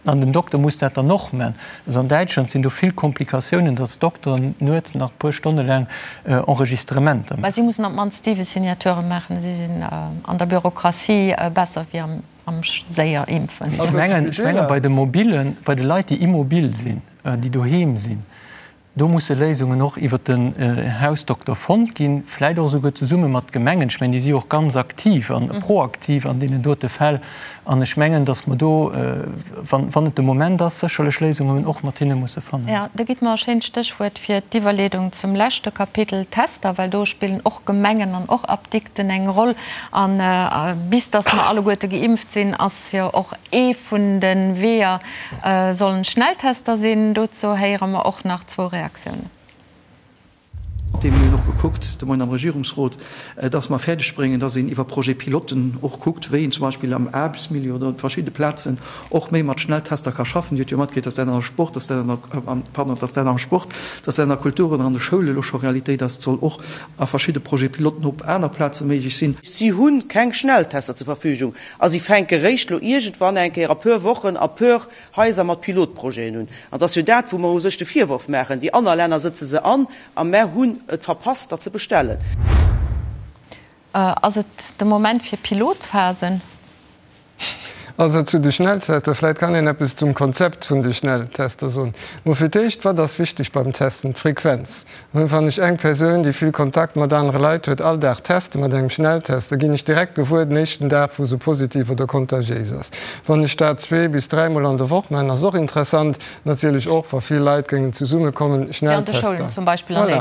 An den Dokter muss dat dann och man. Also an Däitschland sinn do vill Komplikatiounen, datt d'Dokteren nuets nach e puer Stonne laang Enregistrementer Mä maachen. si mussen op d'mannst 7 Signaturë maachen. Si sinn an der Bürokratie besser wéi am séier Impfen. Ech mengen, ech menge bei de Mobilen, bei de Leit, déi immobil sinn, déi doheem sinn, Do musse Léisungen och iwwert den Hausdokter fonnt ginn, vläit och esouguer zesumme mat Gemengen. Ech mengen, déi si jo och ganz aktiv a proaktiv an deenen dote Fäll. An ech mengen, datt mer do, wann et de Moment ass, sécherlech Léisungen och mat hinne musse fannen. Jo, do gitt mer e schéint Stéchwuert fir d'Iwwerleedung zum leschte Kapitel, Tester, well do spillen och Gemengen an och Apdikten eng Roll. A bis datt mer alleguerte geimpft sinn, ass jo och ee vun de Weeër, Sollen Schnelltester sinn? Dozou héiere mer och nach zwou Reaktiounen. Mir hunn och gekuckt de Moien am Regierungsrot, dass mer fäerdeg bréngen, dass een iwwer Projet-piloten och kuckt, wéi een zum Beispill am Aarbechtsmilieu oder op verschidde Plazen och méi mat Schnelltester ka schaffen. Dir hutt jo matkritt, dass dat an der Sport, dass dat an der, pardon, dass dat am Sport, dass dat an der Kultur oder an de Schoule elo scho Realitéit ass. Et soll och a verschidde Projet-piloten op aner Plaze méiglech sinn. Si hu keng Schnelltester zur Verfügung a si fänke réischt elo iergendwann eng Kéier a puer Wochen a puer Haiser mat Pilotprojeten un. An et ass jo dat, wou mer u sech de Virworf maachen, Déi aner Länner sëtze se an a mer hunn et verpasst, der ze bestellen. Ass et de Moment fir Pilotphasen? Also zu de Schnelltester, vläit kann een eppes zum Konzept vun de Schnelltester soen. Mol fir d'éischt, wat ass wichteg beim Testen? D'Frequenz. Wann ech eng Persoun, déi vill Kontakt mat anere Leit huet, all Dag teste mat engem Schnelltest, da ginn ech direkt gewuer den éischten Dag, wou se positiv oder kontagiéis ass. Wann ech dat zweemol bis dräimol an der Woch maachen, ass och interessant, natierlech och, wa vill Leit géingen zesummekommen, Schnelltester. Voilà.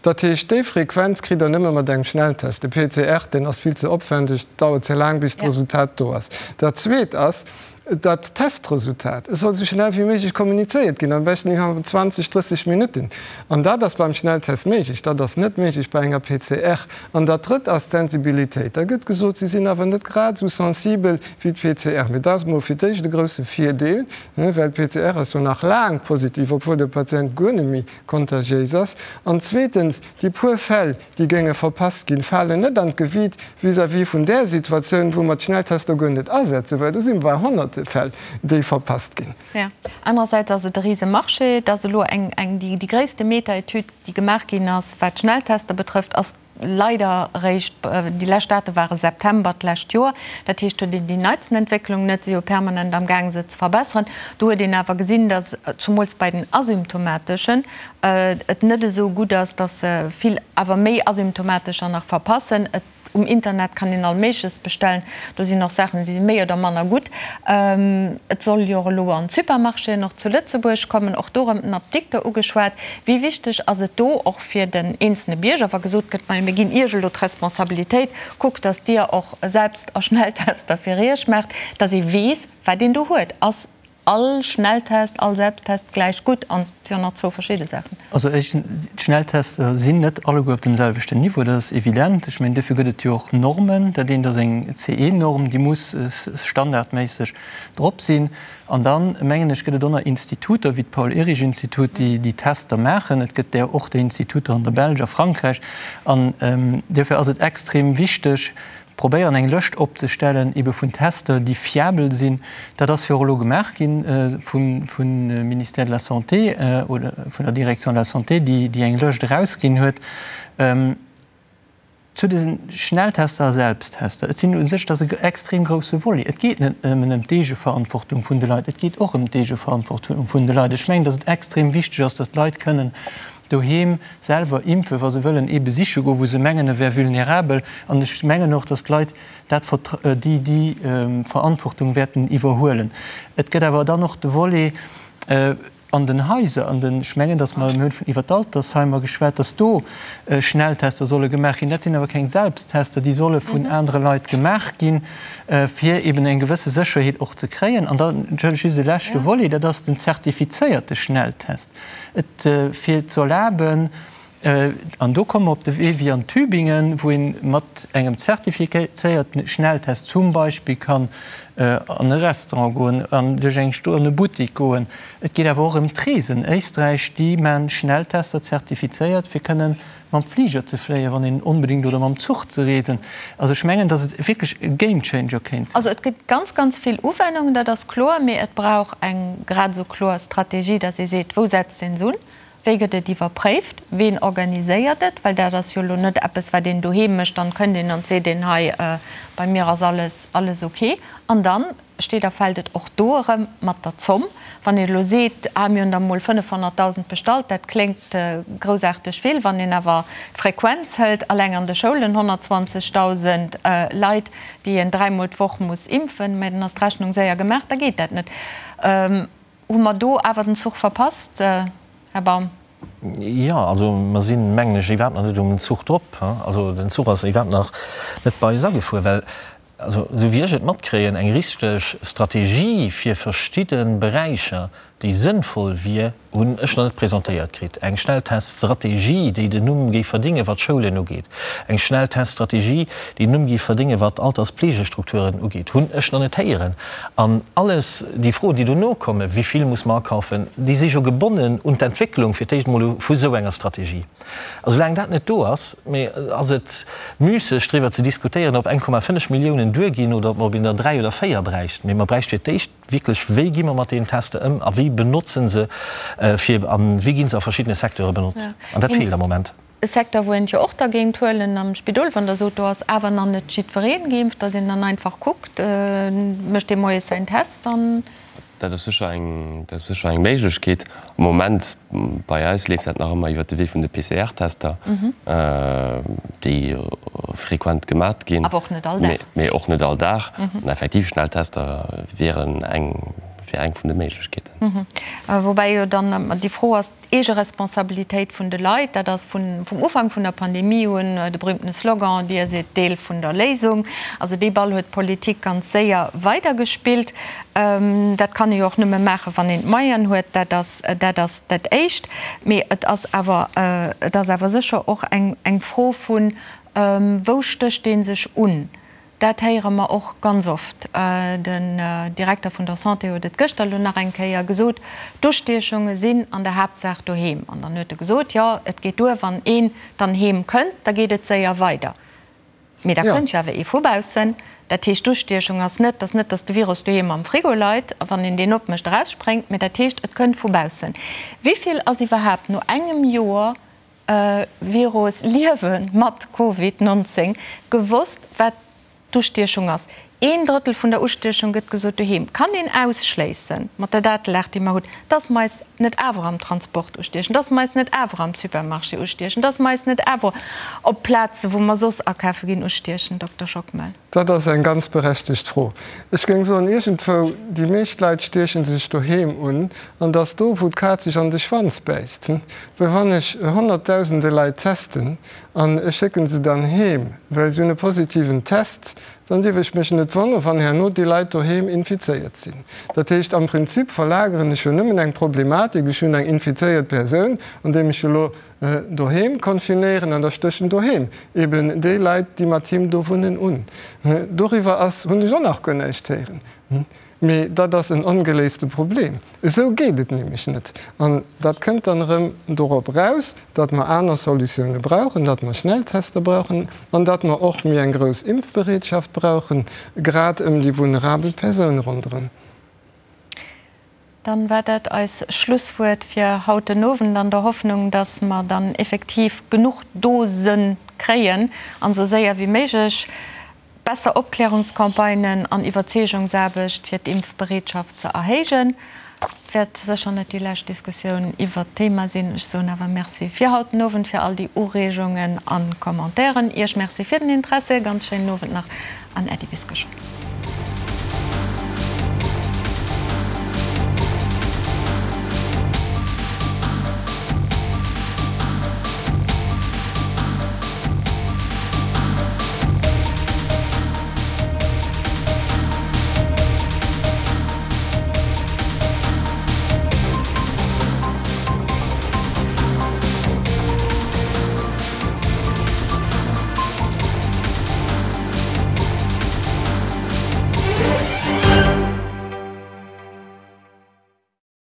Dat heescht, déi Frequenz kritt Der nëmme mat engem Schnelltest. De PCR, deen ass vill ze opwändeg, dauert ze laang, bis d'Resultat do ass. Dat Zweet ass, Dat Testresultat, et soll esou schnell wéi méiglech kommunizéiert ginn, am beschten innerhalb vun 20, 30 Minutten. An dat ass beim Schnelltest méiglech, dat ass net méiglech bei enger PCR. An dat Drëtt ass d'Sensibilitéit. Da gëtt gesot, se sinn awer net grad esou sensibel wéi d'PCR. Mee dat ass emol fir d'éischt e grousse Virdeel, well d'PCR ass jo nach laang positiv, obwuel de Patient guer net méi kontagiéis ass. An zweetens, déi puer Fäll, déi géinge verpasst ginn, falen net an d'Gewiit vis-à-vis vun där Situatioun, wou mer d'Schnelltester guer net asetzen, well do si mer bei honnerte Fäll, déi verpasst ginn. Jo. Anerersäits ass et e rise Marché. Et ass elo eng, eng, déi, déi gréisste Meta-Etüd, déi gemaach ginn ass, wat d'Schnelltester betrëfft, ass leider eréischt, déi lescht Date ware September d'lescht Joer. Dat heescht, do huet een déi neitsten Entwécklung net, si jo permanent amgaang se ze verbesseren. Do huet een awer gesinn, datt zumools bei den Asymptomateschen, et net esou gutt ass, dass vill awer méi Asymptomatescher nach verpassen. Et, um Internet kann een all Méigleches bestellen, do sinn och Saachen, déi si méi oder manner gutt. Et soll jo och elo an d'Supermarchéen och zu Lëtzebuerg kommen, och do erëm den Apdikter ugeschwat. Wéi wichteg ass et do och fir den eenzelne Bierger, wa gesot gëtt, majo mir ginn Iech elo d'Responsabilitéit, kuckt, dass Dir och selbst a Schnelltester fir Iech maacht, dass ee weess, wat een do huet. Ass All Schnelltest, all Selbsttest gläich gutt an et si jo nach zwou verschidde Saachen. Also éischtens, d'Schnelltester sinn net alleguer op deem selwechten Niveau, dat ass evident. Ech mengen, duerfir gëtt et jo och Normen. Dat eent ass eng CE-Norm, déi muss standardméisseg drop sinn. An dann, mengen ech, gëtt et och nach Instituter wéi d'Paul-Ehrlich-Institut, déi déi Tester maachen. Et gëtt där och, déi Instituter an der Belsch, a Frankräich. An duerfir ass et extrem wichteg, Probéieren eng Lëscht opzestellen ebe vun Tester, déi fiabel sinn. Dat ass jo och elo gemaach gi vum Ministère de la Santé oder vun der Direction de la Santé, déi eng Lëscht erausginn huet zu de Schnelltester a Selbsttester. Et sinn u sech, dat ass e extrem grousse Volet. Et geet net nëmmen ëm d'Eegeverantwortung vun de Leit, et geet och ëm d'Eegeverantwortung vun de Leit. Ech mengen, datt et extrem wichteg ass, datt d'Leit kënnen doheem selwer impfen, wa se wëllen ee besiche goen, wou se mengen, e wär vulnerabel. An ech mengen och, datt d'Leit dat, déi, déi Verantwortung wäerten iwwerhuelen. Et gëtt awer dann och de Volet an den Haiser, an den, ech mengen, datt mer, mir hunn iwwer d'Altersheimer geschwat, datt do Schnelltester solle gemaach ginn. Dat sinn awer keng Selbsttester, déi solle vun anere Leit gemaach ginn, fir eben eng gewësse Sécherheet och ze kréien. An dann, entschëllegt, just e leschte Volet, dat ass den zertifizéierte Schnelltest. Et fir ze erlaben, an do komme mer op de Wee wéi an Tübingen, wou ee mat engem zertifizéierten Schnelltest zum Beispill kann an e Restaurant goen, an duerch eng Sto an e Buttik goen. Et geet awer och ëm d'Reesen. Éisträich, déi man Schnelltester zertifizéiert, fir kënnen mam Fliger ze fléien, wann een onbedéngt, oder mam Zuch ze reesen. Also ech mengen, datt et wierklech e Gamechanger kéint sinn. Also et gëtt ganz, ganz vill Uwennungen, dat ass kloer, mee et brauch eng grad esou kloer Strategie, datt ee seet, wou setzt een se un, wéi gëtt et iwwerpréift, ween organiséiert et, well dat ass jo elo net eppes, wat een doheem mécht, dann kënnt een an seet een, hei bei mir ass alles, alles ok. An dann Steet a fält et och do erëm mat der Zomm. Wann een elo seet, ah mir hunn der emol 500.000 bestallt, dat kléngt groussaarteg vill. Wann een awer d'Frequenz hëlt, alleng an de Schoulen 120.000 Leit, déi een dräimol d'Woch muss impfen, mä dann ass d'Rechnung séier gemaach, da geet dat net. Hu mer do awer den Zuch verpasst, Här Baum? Jo, also mer sinn, mengen ech, iwwerhaapt nach net um Zuch drop. Also den Zuch ass iwwerhaapt nach net bei eis agefuer, well Also, esou wéi ech et matkréien, eng richteg Strategie fir verschidde Beräicher, déi sënnvoll wier, hunn ech nach net presentéiert kritt. Eng Schnellteststrategie, déi den Numm géif verdéngen, wat d'Schoulen ugeet, eng Schnellteststrategie, déi den Numm géif verdéngen, wat d'Alterspflegestrukturen ugeet, hunn ech nach net héieren. An alles déi Froen, déi dono kommen, wéi vill muss mer akaufen, déi si jo gebonnen un d'Entwécklung fir d'éischt emol vu esou enger Strategie. A soulaang dat net do ass, mee ass et müsseg driwwer ze diskutéieren, ob 1,5 Milliounen duerginn oder ob mer op een der 3 oder 4 bräichten. Mee mer bräicht fir d'éischt wierklech, wéi gi mer mat deenen Tester ëm a wéi benotzen se fir a wéi gi se a verschiddene Secteure benotzt. An dat feelt am Moment. E Secteur, wou een et jo och da géint huelen am Spidol, wann Der sot, do ass awer nach net jiddweree geimpft, datt een dann einfach kuckt, mécht dee moies säin Test an. Dat ass sécher eng, dat ass sécher eng Méiglechkeet. Am Moment bei eis leeft dat nach ëmmer iwwert de Wee vun de PCR-Tester, déi frequent gemat ginn. Awer och net all Dag. Mee och net all Dag. An effektiv, Schnelltester wieren eng, wär eng vun de Méiglechkeeten. Woubäi jo dann ëmmer déi Fro ass, D'Eegeresponsabilitéit vun de Leit, dat ass vum Ufank vun der Pandemie un de berühmtene Slogan, Dir sidd Deel vun der Léisung. Also dee Ball huet d'Politik ganz séier weidergespillt. Dat kann ee jo och nëmme maachen, wann een d'Moyenen huet. Dat ass dat ass dat Éischt. Mee et ass awer, et ass awer sécher och eng Fro vun, Wou stécht ee sech un? Dat héiere mer och ganz oft. Den Direkter vun der Santé huet et gëschter elo nach eng Kéier gesot, D'Ustiechunge sinn an der Haaptsaach doheem. An dann huet e gesot, jo, et geet duer, wann een dann heem kënnt, da geet et séier weider. Mee da kënnt jo awer ee vu baussen. Dat heescht, d'Ustiechung ass net, dass net, dass de Virus doheem am Frigo leit a wann een deen opmécht erausspréngt, mee dat heescht, et kënnt vu baussen. Wéi vill ass iwwerhaapt no engem Joer Virus liewe mat Covid 19 gewosst wat d'Ustiechung ass. Een Drëttel vun der Ustiechung gëtt gesot doheem. Kann een ausschléissen mat der Datelag déi mer hunn, dass mer eis net awer am Transport ustiechen, dass mer eis net awer am Supermarché ustiechen, dass mer eis net awer op Plaze wou mer soss akafe ginn ustiechen, Dokter Schockmel? Dat ass eng ganz berechtegt Fro. Ech géing soen, iergendwou, déi meescht Leit stieche sech doheem un, an dass do, wou d'Kaz sech an de Schwanz bäisst. Well wann ech Honnertdausende Leit testen an ech schécke se dann heem, well se hunn e positiven Test, dann dierf ech mech net wonnere wann herno déi Leit doheem infizéiert sinn. Dat heescht, am Prinzip verlageren ech jo nëmmen eng Problematik, ech hunn eng infizéiert Persoun, andeem ech elo Doheem confinéieren an da stéchen doheem eben déi Leit, déi mat him do wunnen, un. Doriwwer ass, hunn ech och nach guer näischt héieren. Mee dat ass en ongeléiste Problem. Esou geet et nämlech net. An dat kënnt dann erëm dorop eraus, datt mer aner Solutioune brauchen, datt mer Schnelltester brauchen an datt mer och méi eng grouss Impfbereetschaft brauchen, grad ëm déi vulnerabel Persoune ronderëm. Dann war dat eis Schlusswuert fir haut den Owend, an der Hoffnung, dass mer dann effektiv genuch Dosen kréien an esou séier wéi méiglech besser Opklärungscampagnen an Iwwerzeegungsaarbecht fir d'Impfbereetschaft ze erhéijen. Et wäert sécher net déi lescht Diskussioun iwwert d'Thema sinn. Ech soen awer Merci fir haut den Owend, fir all déi Ureegungen an Commentairen. Iech Merci fir den Interesse. Ganz schéinen Owend nach an Äddi bis geschwënn.